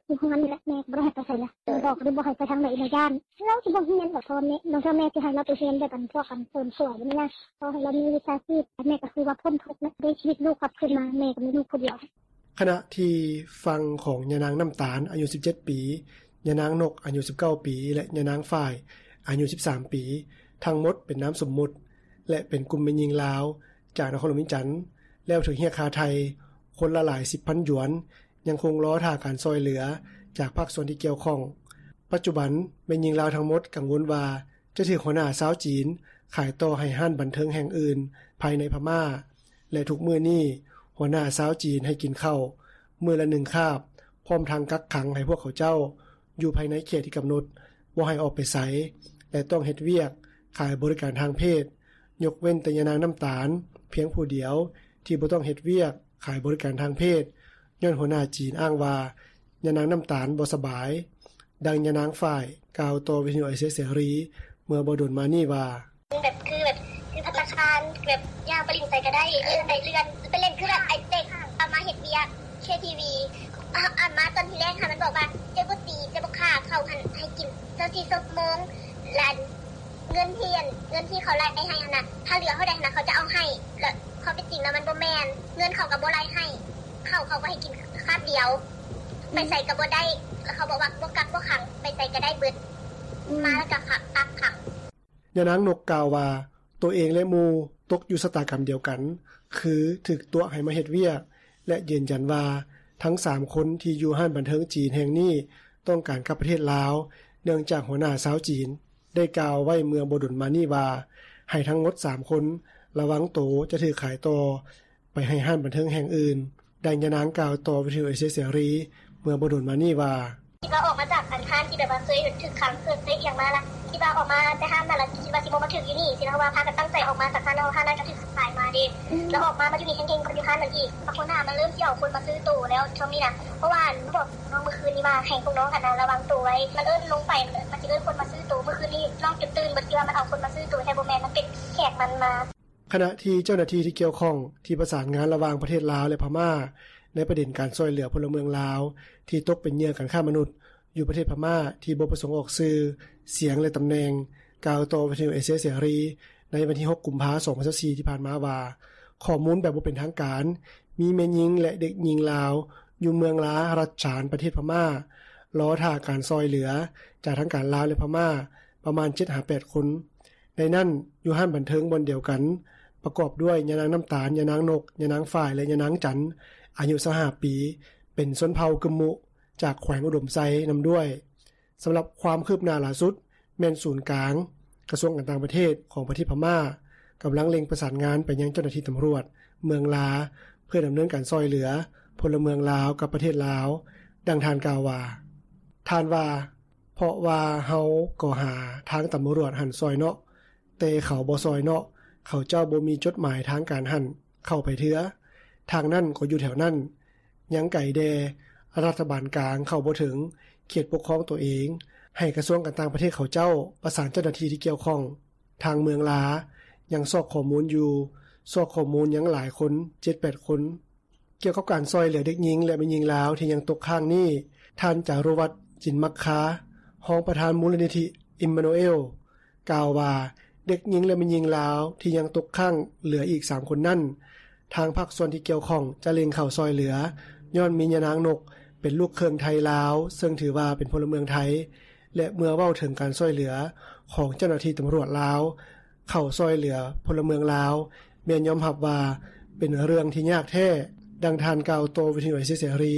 ຢູ່ເຮືອນນີ້ແຫຼະ ແມ່ກໍບໍ່ໄດ້ໃຫ້ໄປໃສລະ ບອກເດ້ ບໍ່ໃຫ້ໄປທາງໃດລະ ຢ້ານ ລາວຊິບໍ່ຮຽນບໍ ພໍ່ແມ່ ລາງເທື່ອແມ່ຊິໃຫ້ລາວໄປຮຽນແບບອັນພວກອັນເສີມສວຍນີ້ນະ ຂໍໃຫ້ລາວມີວິຊາຊີບ ແມ່ກໍຄືວ່າພົ້ນທຸກແລ້ວ ໄດ້ຊີວິດລູກກັບຄືນມາ ແມ່ກໍມີລູກຜູ້ດຽວ. ຂະນະທີ່ຝັ່ງຂອງຍານາງນ້ຳຕານ ອາຍຸສິບເຈັດປີ, ຍານາງນົກ ອາຍຸສິບເກົ້າປີ ແລະ ຍານາງຝ້າຍ ອາຍຸສິບສາມປີ ທັງໝົດເປັນນາມສົມມຸດ ແລະ ເປັນກຸ່ມແມ່ຍິງລາວ ຈາກນະຄອນຫຼວງວຽງຈັນ ແລ້ວຖືກຮຽກຄ່າໄຖ່ຄົນລະຫຼາຍສິບພັນຢວນ ຍັງຄົງລໍຖ້າການຊ່ອຍເຫຼືອຈາກພາກສ່ວນທີ່ກ່ຽວຂ້ອງ. ປັດຈຸບັນ ແມ່ຍິງລາວທັງໝົດກັງວົນວ່າ ຈະຖືກຫົວໜ້າຊາວຈີນຂາຍຕໍ່ໃຫ້ຮ້ານບັນເທີງແຫ່ງອື່ນພາຍໃນພະມ້າ ແລະ ທຸກມື້ນີ້ ຫົວໜ້າຊາວຈີນໃຫ້ກິນເຂົ້າມື້ລະໜຶ່ງຄາບ ພ້ອມທັງກັກຂັງໃຫ້ພວກເຂົາເຈົ້າຢູ່ພາຍໃນເຂດທີ່ກຳນົດ ບໍ່ໃຫ້ອອກໄປໃສ ແລະ ຕ້ອງເຮັດວຽກຂາຍບໍລິການທາງເພດ ຍົກເວັ້ນແຕ່ຍານາງນ້ຳຕານພຽງຜູ້ດຽວ ທີ່ບໍ່ຕ້ອງເຮັດວຽກຂາຍບໍລິການທາງເພດ ຍ້ອນຫົວໜ້າຈີນອ້າງວ່າ ຍານາງນ້ຳຕານບໍ່ສະບາຍ. ດັ່ງຍານາງຝ້າຍກ່າວຕໍ່ວິທະຍຸເອເຊຍເສລີເມື່ອບໍ່ດົນມານີ້ວ່າ ແບບ ຄືແບບ ຄືພັດຕາຄານ ແບບຍ່າງໄປຫຼິ້ນໃສກໍໄດ້ ເອີ ໄປເລື່ອນ ໄປຫຼິ້ນ ຄືແບບໄອ້ເດັກເອົາມາເຮັດວຽກ ເຄທີວີ ອັນມາຕອນທີແລກຫັ້ນ ມັນບອກວ່າ ເຈົ້າບໍ່ຕີ ເຈົ້າບໍ່ຂ້າ ເຂົາຫັ້ນໃຫ້ກິນຊາວສີ່ຊົ່ວໂມງ ແລະ ເງິນທີ່ ເງິນທີ່ເຂົາໄລ່ໃຫ້ຫັ້ນນະ ຖ້າເຫຼືອເທົ່າໃດຫັ້ນນະ ເຂົາຈະເອົາໃຫ້ ແລະ ຄວາມເປັນຈິງແລ້ວມັນບໍ່ແມ່ນ ເງິນເຂົາກໍບໍ່ໄລ່ໃຫ້ ເຂົ້າເຂົາກໍໃຫ້ກິນຄາບດຽວ ໄປໃສກໍບໍ່ໄດ້ ແລ້ວເຂົາບອກວ່າບໍ່ກັກບໍ່ຂັງ ໄປໃສກໍໄດ້ເບິດ ມາແລ້ວກໍກັກຂັງ. ຍານາງນົກກ່າວວ່າ ໂຕເອງ ແລະ ໝູ່ຕົກຢູ່ຊະຕາກຳດຽວກັນ ຄືຖືກຕົວະໃຫ້ມາເຮັດວຽກ ແລະ ຢືນຢັນວ່າ ທັງສາມຄົນທີ່ຢູ່ຮ້ານບັນເທີງຈີນແຫ່ງນີ້ ຕ້ອງການກັບປະເທດລາວ ເນື່ອງຈາກຫົວໜ້າຊາວຈີນ ໄດ້ກ່າວໄວ້ເມື່ອບໍ່ດົນມານີ້ວ່າ ໃຫ້ທັງໝົດສາມຄົນລະວັງໂຕຈະຖືກຂາຍຕໍ່ໄປໃຫ້ຮ້ານບັນເທີງແຫ່ງອື່ນ. ດັ່ງຍານາງກ່າວຕໍ່ວິທະຍຸເອເຊຍເສລີເມື່ອບໍ່ດົນມານີ້ວ່າ ຄິດວ່າອອກມາຈາກອັນຮ້ານທີ່ແບບວ່າເຄີຍຖືກຂັງ ເຄີຍ ເຄີຍອີ່ຫຍັງມາລະ ຄິດວ່າອອກມາແຕ່ຮ້ານນັ້ນລະ ຄິດວ່າຊິບໍ່ມາຖືກຢູ່ນີ້ຊີ້ນະ ເພາະວ່າພາກັນຕັ້ງໃຈອອກມາຈາກຮ້ານນັ້ນ ຮ້ານນັ້ນກໍຖືກຂາຍມາເດ້ ແລ້ວອອກມາ ມາຢູ່ນີ້ແຮງໆ ກໍຢູ່ຮ້ານນັ້ນອີກ ພວກຫົວໜ້າມັນເລີ່ມຊິເອົາຄົນມາຊື້ໂຕແລ້ວຊ່ວງນີ້ນະ ເພາະວ່າບອກ ນ້ອງມື້ຄືນນີ້ວ່າໃຫ້ພວກນ້ອງຫັ້ນນະລະວັງໂຕໄວ້ ມັນເອີ້ນລົງໄປ ມັນຊິເອີ້ນຄົນມາຊື້ໂຕ ມື້ຄືນນີ້ນ້ອງຈົນຕື່ນເບິດ ຄິດວ່າມັນເອົາຄົນມາຊື້ໂຕແທ້ ບໍ່ແມ່ນ ມັນເປັນແຂກມັນມາ. ຂະນະທີ່ເຈົ້າໜ້າທີ່ທີ່ກ່ຽວຂ້ອງທີ່ປະສານງານລະຫວ່າງປະເທດລາວ ແລະ ພະມ້າ ໃນປະເດັນການຊ່ອຍເຫຼືອພົນລະເມືອງລາວທີ່ຕົກເປັນເຫຍື່ອການຄ້າມະນຸດຢູ່ປະເທດພະມ້າທີ່ບໍ່ປະສົງອອກຊື່, ສຽງ ແລະ ຕຳແໜ່ງ ກ່າວຕໍ່ວິທະຍຸເອເຊຍເສລີໃນວັນທີຫົກ ກຸມພາ ສອງພັນຊາວສີ່ ທີ່ຜ່ານມາວ່າ ຂໍ້ມູນແບບບໍ່ເປັນທາງການ ມີແມ່ຍິງ ແລະ ເດັກຍິງລາວຢູ່ເມືອງລາ ລັດສານ ປະເທດພະມ້າ ລໍຖ້າການຊ່ອຍເຫຼືອຈາກທາງການລາວ ແລະ ພະມ້າ ປະມານເຈັດຫາແປດຄົນ. ໃນນັ້ນ ຢູ່ຮ້ານບັນເທີງບ່ອນດຽວກັນ ປະກອບດ້ວຍຍານາງນ້ຳຕານ, ຍານາງນົກ, ຍານາງຝ້າຍ ແລະ ຍານາງຈັນ ອາຍຸຊາວຫ້າປີ ເປັນຊົນເຜົ່າກຶມມຸ ຈາກແຂວງອຸດົມໄຊນຳດ້ວຍ. ສຳລັບຄວາມຄືບໜ້າຫຼ້າສຸດ ແມ່ນສູນກາງກະຊວງການຕ່າງປະເທດຂອງປະເທດພະມ້າ ກຳລັງເລັ່ງປະສານງານໄປຍັງເຈົ້າໜ້າທີ່ຕຳຫຼວດເມືອງລາ ເພື່ອດຳເນີນການຊ່ອຍເຫຼືອພົນລະເມືອງລາວກັບປະເທດລາວ. ດັ່ງທ່ານກ່າວວ່າ ທ່ານວ່າ ເພາະວ່າເຮົາກໍຫາທາງຕຳຫຼວດຫັ້ນຊ່ອຍເນາະ ແຕ່ເຂົາບໍ່ຊ່ອຍເນາະ ເຂົາເຈົ້າບໍ່ມີຈົດໝາຍທາງການຫັ້ນເຂົ້າໄປເທື່ອ ທາງນັ້ນກໍຢູ່ແຖວນັ້ນ ຍັງໄກແດ່ ລັດຖະບານກາງເຂົ້າບໍ່ເຖິງເຂດປົກຄອງໂຕເອງ ໃຫ້ກະຊວງການຕ່າງປະເທດເຂົາເຈົ້າປະສານເຈົ້າໜ້າທີ່ທີ່ກ່ຽວຂ້ອງ. ທາງເມືອງລາຍັງຊອກຂໍ້ມູນຢູ່ ຊອກຂໍ້ມູນຍັງຫຼາຍຄົນ ເຈັດແປດຄົນ. ກ່ຽວກັບການຊ່ອຍເຫຼືອເດັກຍິງ ແລະ ແມ່ຍິງລາວທີ່ຍັງຕົກຄ້າງນີ້ ທ່ານ ຈາຣຸວັດ ຈິນມັກຄາ ຮອງປະທານມູນນິທິອິມມານູເອລ ກ່າວວ່າ ເດັກຍິງ ແລະ ແມ່ຍິງລາວທີ່ຍັງຕົກຄ້າງເຫຼືອອີກສາມຄົນນັ້ນ ທາງພາກສ່ວນທີ່ກ່ຽວຂ້ອງຈະເລັ່ງເຂົ້າຊ່ອຍເຫຼືອ ຍ້ອນມີຍານາງນົກເປັນລູກເຄິ່ງໄທລາວ ເຊິ່ງຖືວ່າເປັນພົນລະເມືອງໄທ ແລະ ເມື່ອເວົ້າເຖິງການຊ່ອຍເຫຼືອຂອງເຈົ້າໜ້າທີ່ຕຳຫຼວດລາວ ເຂົ້າຊ່ອຍເຫຼືອພົນລະເມືອງລາວ ແມ່ນຍອມຮັບວ່າເປັນເລື່ອງທີ່ຍາກແທ້. ດັ່ງທ່ານກ່າວຕໍ່ວິທະຍຸເອເຊຍເສລີ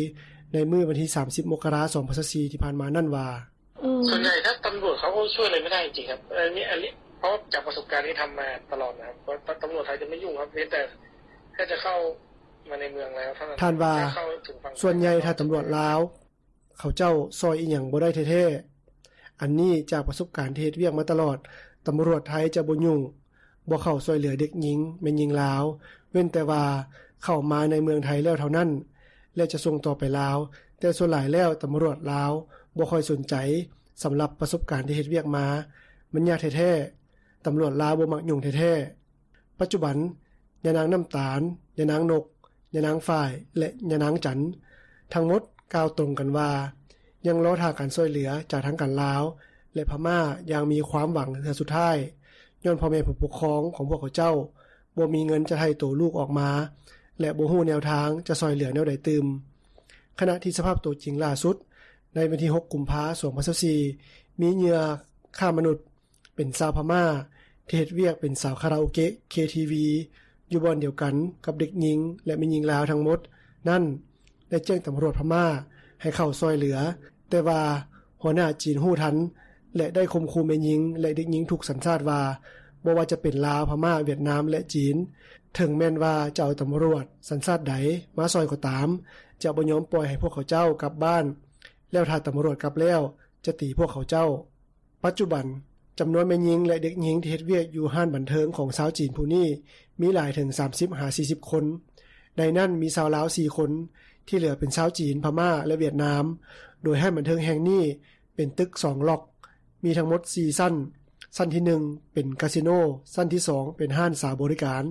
ໃນມື້ວັນທີສາມສິບ ມົກກະລາ ສອງພັນຊາວສີ່ ທີ່ຜ່ານມານັ້ນວ່າ ສ່ວນໃຫຍ່ຖ້າຕຳຫຼວດເຂົາກໍຊ່ວຍອະໄລບໍ່ໄດ້ຈິງໆ ຄັບ ອັນນີ້ ອັນນີ້ ເພາະຈາກປະສົບການທີ່ທຳມາຕະຫຼອດນະ ວ່າຕຳຫຼວດໄທຈະໄມ່ຫຍຸ້ງ ເພຽງແຕ່ແຄ່ຈະເຂົ້າມາໃນເມືອງແລ້ວເທົ່ານັ້ນ. ທ່ານວ່າ ສ່ວນໃຫຍ່ຖ້າຕຳຫຼວດລາວ ເຂົາເຈົ້າຊ່ອຍອີ່ຫຍັງບໍ່ໄດ້ແທ້ໆ ອັນນີ້ຈາກປະສົບການທີ່ເຮັດວຽກມາຕະຫຼອດ ຕຳຫຼວດໄທຈະບໍ່ຫຍຸ້ງ ບໍ່ເຂົ້າຊ່ອຍເຫຼືອເດັກຍິງ ແມ່ຍິງລາວ ເວັ້ນແຕ່ວ່າເຂົ້າມາໃນເມືອງໄທແລ້ວເທົ່ານັ້ນ ແລະ ຈະສົ່ງຕໍ່ໄປລາວ ແຕ່ສ່ວນຫຼາຍແລ້ວຕຳຫຼວດລາວບໍ່ຄ່ອຍສົນໃຈ. ສຳລັບປະສົບການທີ່ເຮັດວຽກມາ ມັນຍາກແທ້ໆ ຕຳຫຼວດລາວບໍ່ມັກຫຍຸ້ງແທ້ໆ. ປັດຈຸບັນ ຍານາງນ້ຳຕານ, ຍານາງນົກ, ຍານາງຝ້າຍ ແລະ ຍານາງຈັນ ທັງໝົດກ່າວຕົງກັນວ່າ ຍັງລໍຖ້າການຊ່ອຍເຫຼືອຈາກທາງການລາວ ແລະ ພະມ້າຢ່າງມີຄວາມຫວັງເທື່ອສຸດທ້າຍ ຍ້ອນພໍ່ແມ່ຜູ້ປົກຄອງຂອງພວກເຂົາເຈົ້າ ບໍ່ມີເງິນຈະໄຖ່ໂຕລູກອອກມາ ແລະ ບໍ່ຮູ້ແນວທາງຈະຊ່ອຍເຫຼືອແນວໃດຕື່ມ. ຂະນະທີ່ສະພາບໂຕຈິງລ່າສຸດ ໃນວັນທີຫົກ ກຸມພາ ສອງພັນຊາວສີ່ ມີເຫຍື່ອຄ້າມະນຸດ ເປັນຊາວພະມ້າ ທີ່ເຮັດວຽກເປັນສາວຄາຣາໂອເກະ ເຄທີວີ ຢູ່ບ່ອນດຽວກັນກັບເດັກຍິງ ແລະ ແມ່ຍິງລາວທັງໝົດນັ້ນ ໄດ້ແຈ້ງຕຳຫຼວດພະມ້າໃຫ້ເຂົ້າຊ່ອຍເຫຼືອ, ແຕ່ວ່າຫົວໜ້າຈີນຮູ້ທັນ ແລະ ໄດ້ຂົ່ມຂູ່ແມ່ຍິງ ແລະ ເດັກຍິງທຸກສັນຊາດວ່າ ບໍ່ວ່າຈະເປັນລາວ, ພະມ້າ, ຫວຽດນາມ ແລະ ຈີນ, ເຖິງແມ່ນວ່າຈະເອົາຕຳຫຼວດສັນຊາດໃດມາຊ່ອຍກໍຕາມ, ຈະບໍ່ຍອມປ່ອຍໃຫ້ພວກເຂົາເຈົ້າກັບບ້ານ, ແລ້ວຖ້າຕຳຫຼວດກັບແລ້ວ ຈະຕີພວກເຂົາເຈົ້າ. ປັດຈຸບັນ, ຈຳນວນແມ່ຍິງ ແລະ ເດັກຍິງທີ່ເຮັດວຽກຢູ່ຮ້ານບັນເທີງຂອງຊາວຈີນຜູ້ນີ້ ມີຫຼາຍເຖິງສາມສິບຫາສີ່ສິບຄົນ. ໃນນັ້ນມີຊາວລາວສີ່ຄົນ, ທີ່ເຫຼືອເປັນຊາວຈີນ, ພະມ້າ ແລະ ຫວຽດນາມ. ໂດຍຮ້ານບັນເທີງແຫ່ງນີ້ເປັນຕຶກສອງລັອກ, ມີທັງໝົດສີ່ຊັ້ນ. ຊັ້ນທີໜຶ່ງເປັນກາສິໂນ, ຊັ້ນທີສອງເປັນຮ້ານສາວບໍລິການ,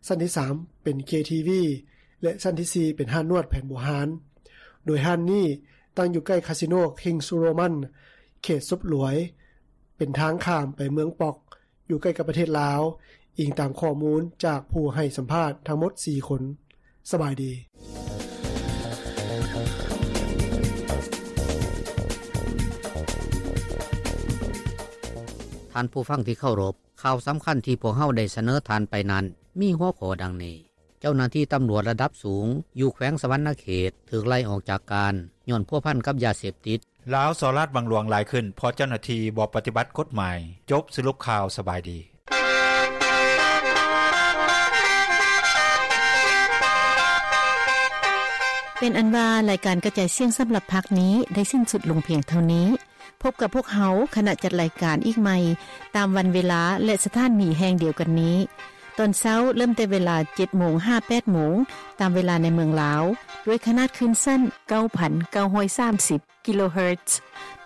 ຊັ້ນທີສາມເປັນເຄທີວີ ແລະ ຊັ້ນທີສີ່ເປັນຮ້ານນວດແຜນບູຮານ. ໂດຍຮ້ານນີ້ ຕັ້ງຢູ່ໃກ້ຄາສິໂນ ຄິງສ໌ໂຣມັນ ເຂດສົບຫຼວຍ ເປັນທາງຂ້າມໄປເມືອງປອກ ຢູ່ໃກ້ກັບປະເທດລາວ, ອີງຕາມຂໍ້ມູນຈາກຜູ້ໃຫ້ສຳພາດທັງໝົດສີ່ຄົນ. ສະບາຍດີ. ທ່ານຜູ້ຟັງທີ່ເຄົາລົບ, ຂ່າວສຳຄັນທີ່ພວກເຮົາໄດ້ສະເໜີທ່ານໄປນັ້ນ ມີຫົວຂໍ້ດັ່ງນີ້. ເຈົ້າໜ້າທີ່ຕຳຫຼວດລະດັບສູງຢູ່ແຂວງສະຫວັນນະເຂດຖືກໄລ່ອອກຈາກການ ຍ້ອນພົວພັນກັບຢາເສບຕິດ. ລາວສໍ້ລາດບັງຫຼວງຫຼາຍຂຶ້ນ ເພາະເຈົ້າໜ້າທີ່ບໍ່ປະຕິບັດກົດໝາຍ. ຈົບສະຫຼຸບຂ່າວ. ສະບາຍດີ. ເປັນອັນວ່າ ລາຍການກະຈາຍສຽງສຳລັບພາກນີ້ໄດ້ສິ້ນສຸດລົງພຽງເທົ່ານີ້. ພົບກັບພວກເຮົາ ຄະນະຈັດລາຍການ ອີກໃໝ່ ຕາມວັນເວລາ ແລະ ສະຖານີແຫ່ງດຽວກັນນີ້. ຕອນເຊົ້າເລີ່ມແຕ່ເວລາເຈັດໂມງຫາແປດໂມງ ຕາມເວລາໃນເມືອງລາວ ດ້ວຍຂະໜາດຄື້ນສັ້ນເກົ້າພັນເກົ້າຮ້ອຍສາມສິບກິໂລເຮີດ.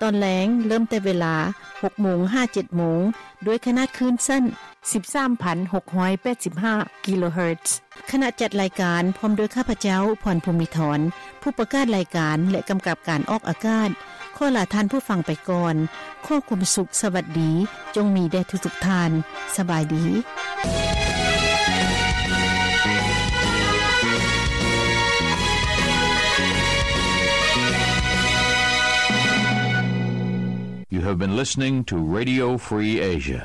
ຕອນແລງເລີ່ມແຕ່ເວລາຫົກໂມງຫາເຈັດໂມງ ດ້ວຍຂະໜາດຄື້ນສັ້ນສິບສາມພັນຫົກຮ້ອຍແປດສິບຫ້າກິໂລເຮີດ. ຄະນະຈັດລາຍການ ພ້ອມດ້ວຍຂ້າພະເຈົ້າ ພອນ ພູມມິທອນ ຜູ້ປະກາດລາຍການ ແລະ ກຳກັບການອອກອາກາດ ຂໍລາທ່ານຜູ້ຟັງໄປກ່ອນ. ຂໍຄວາມສຸກ, ສະຫວັດດີ ຈົ່ງມີແດ່ທຸກໆທ່ານ. ສະບາຍດີ. You have been listening to Radio Free Asia.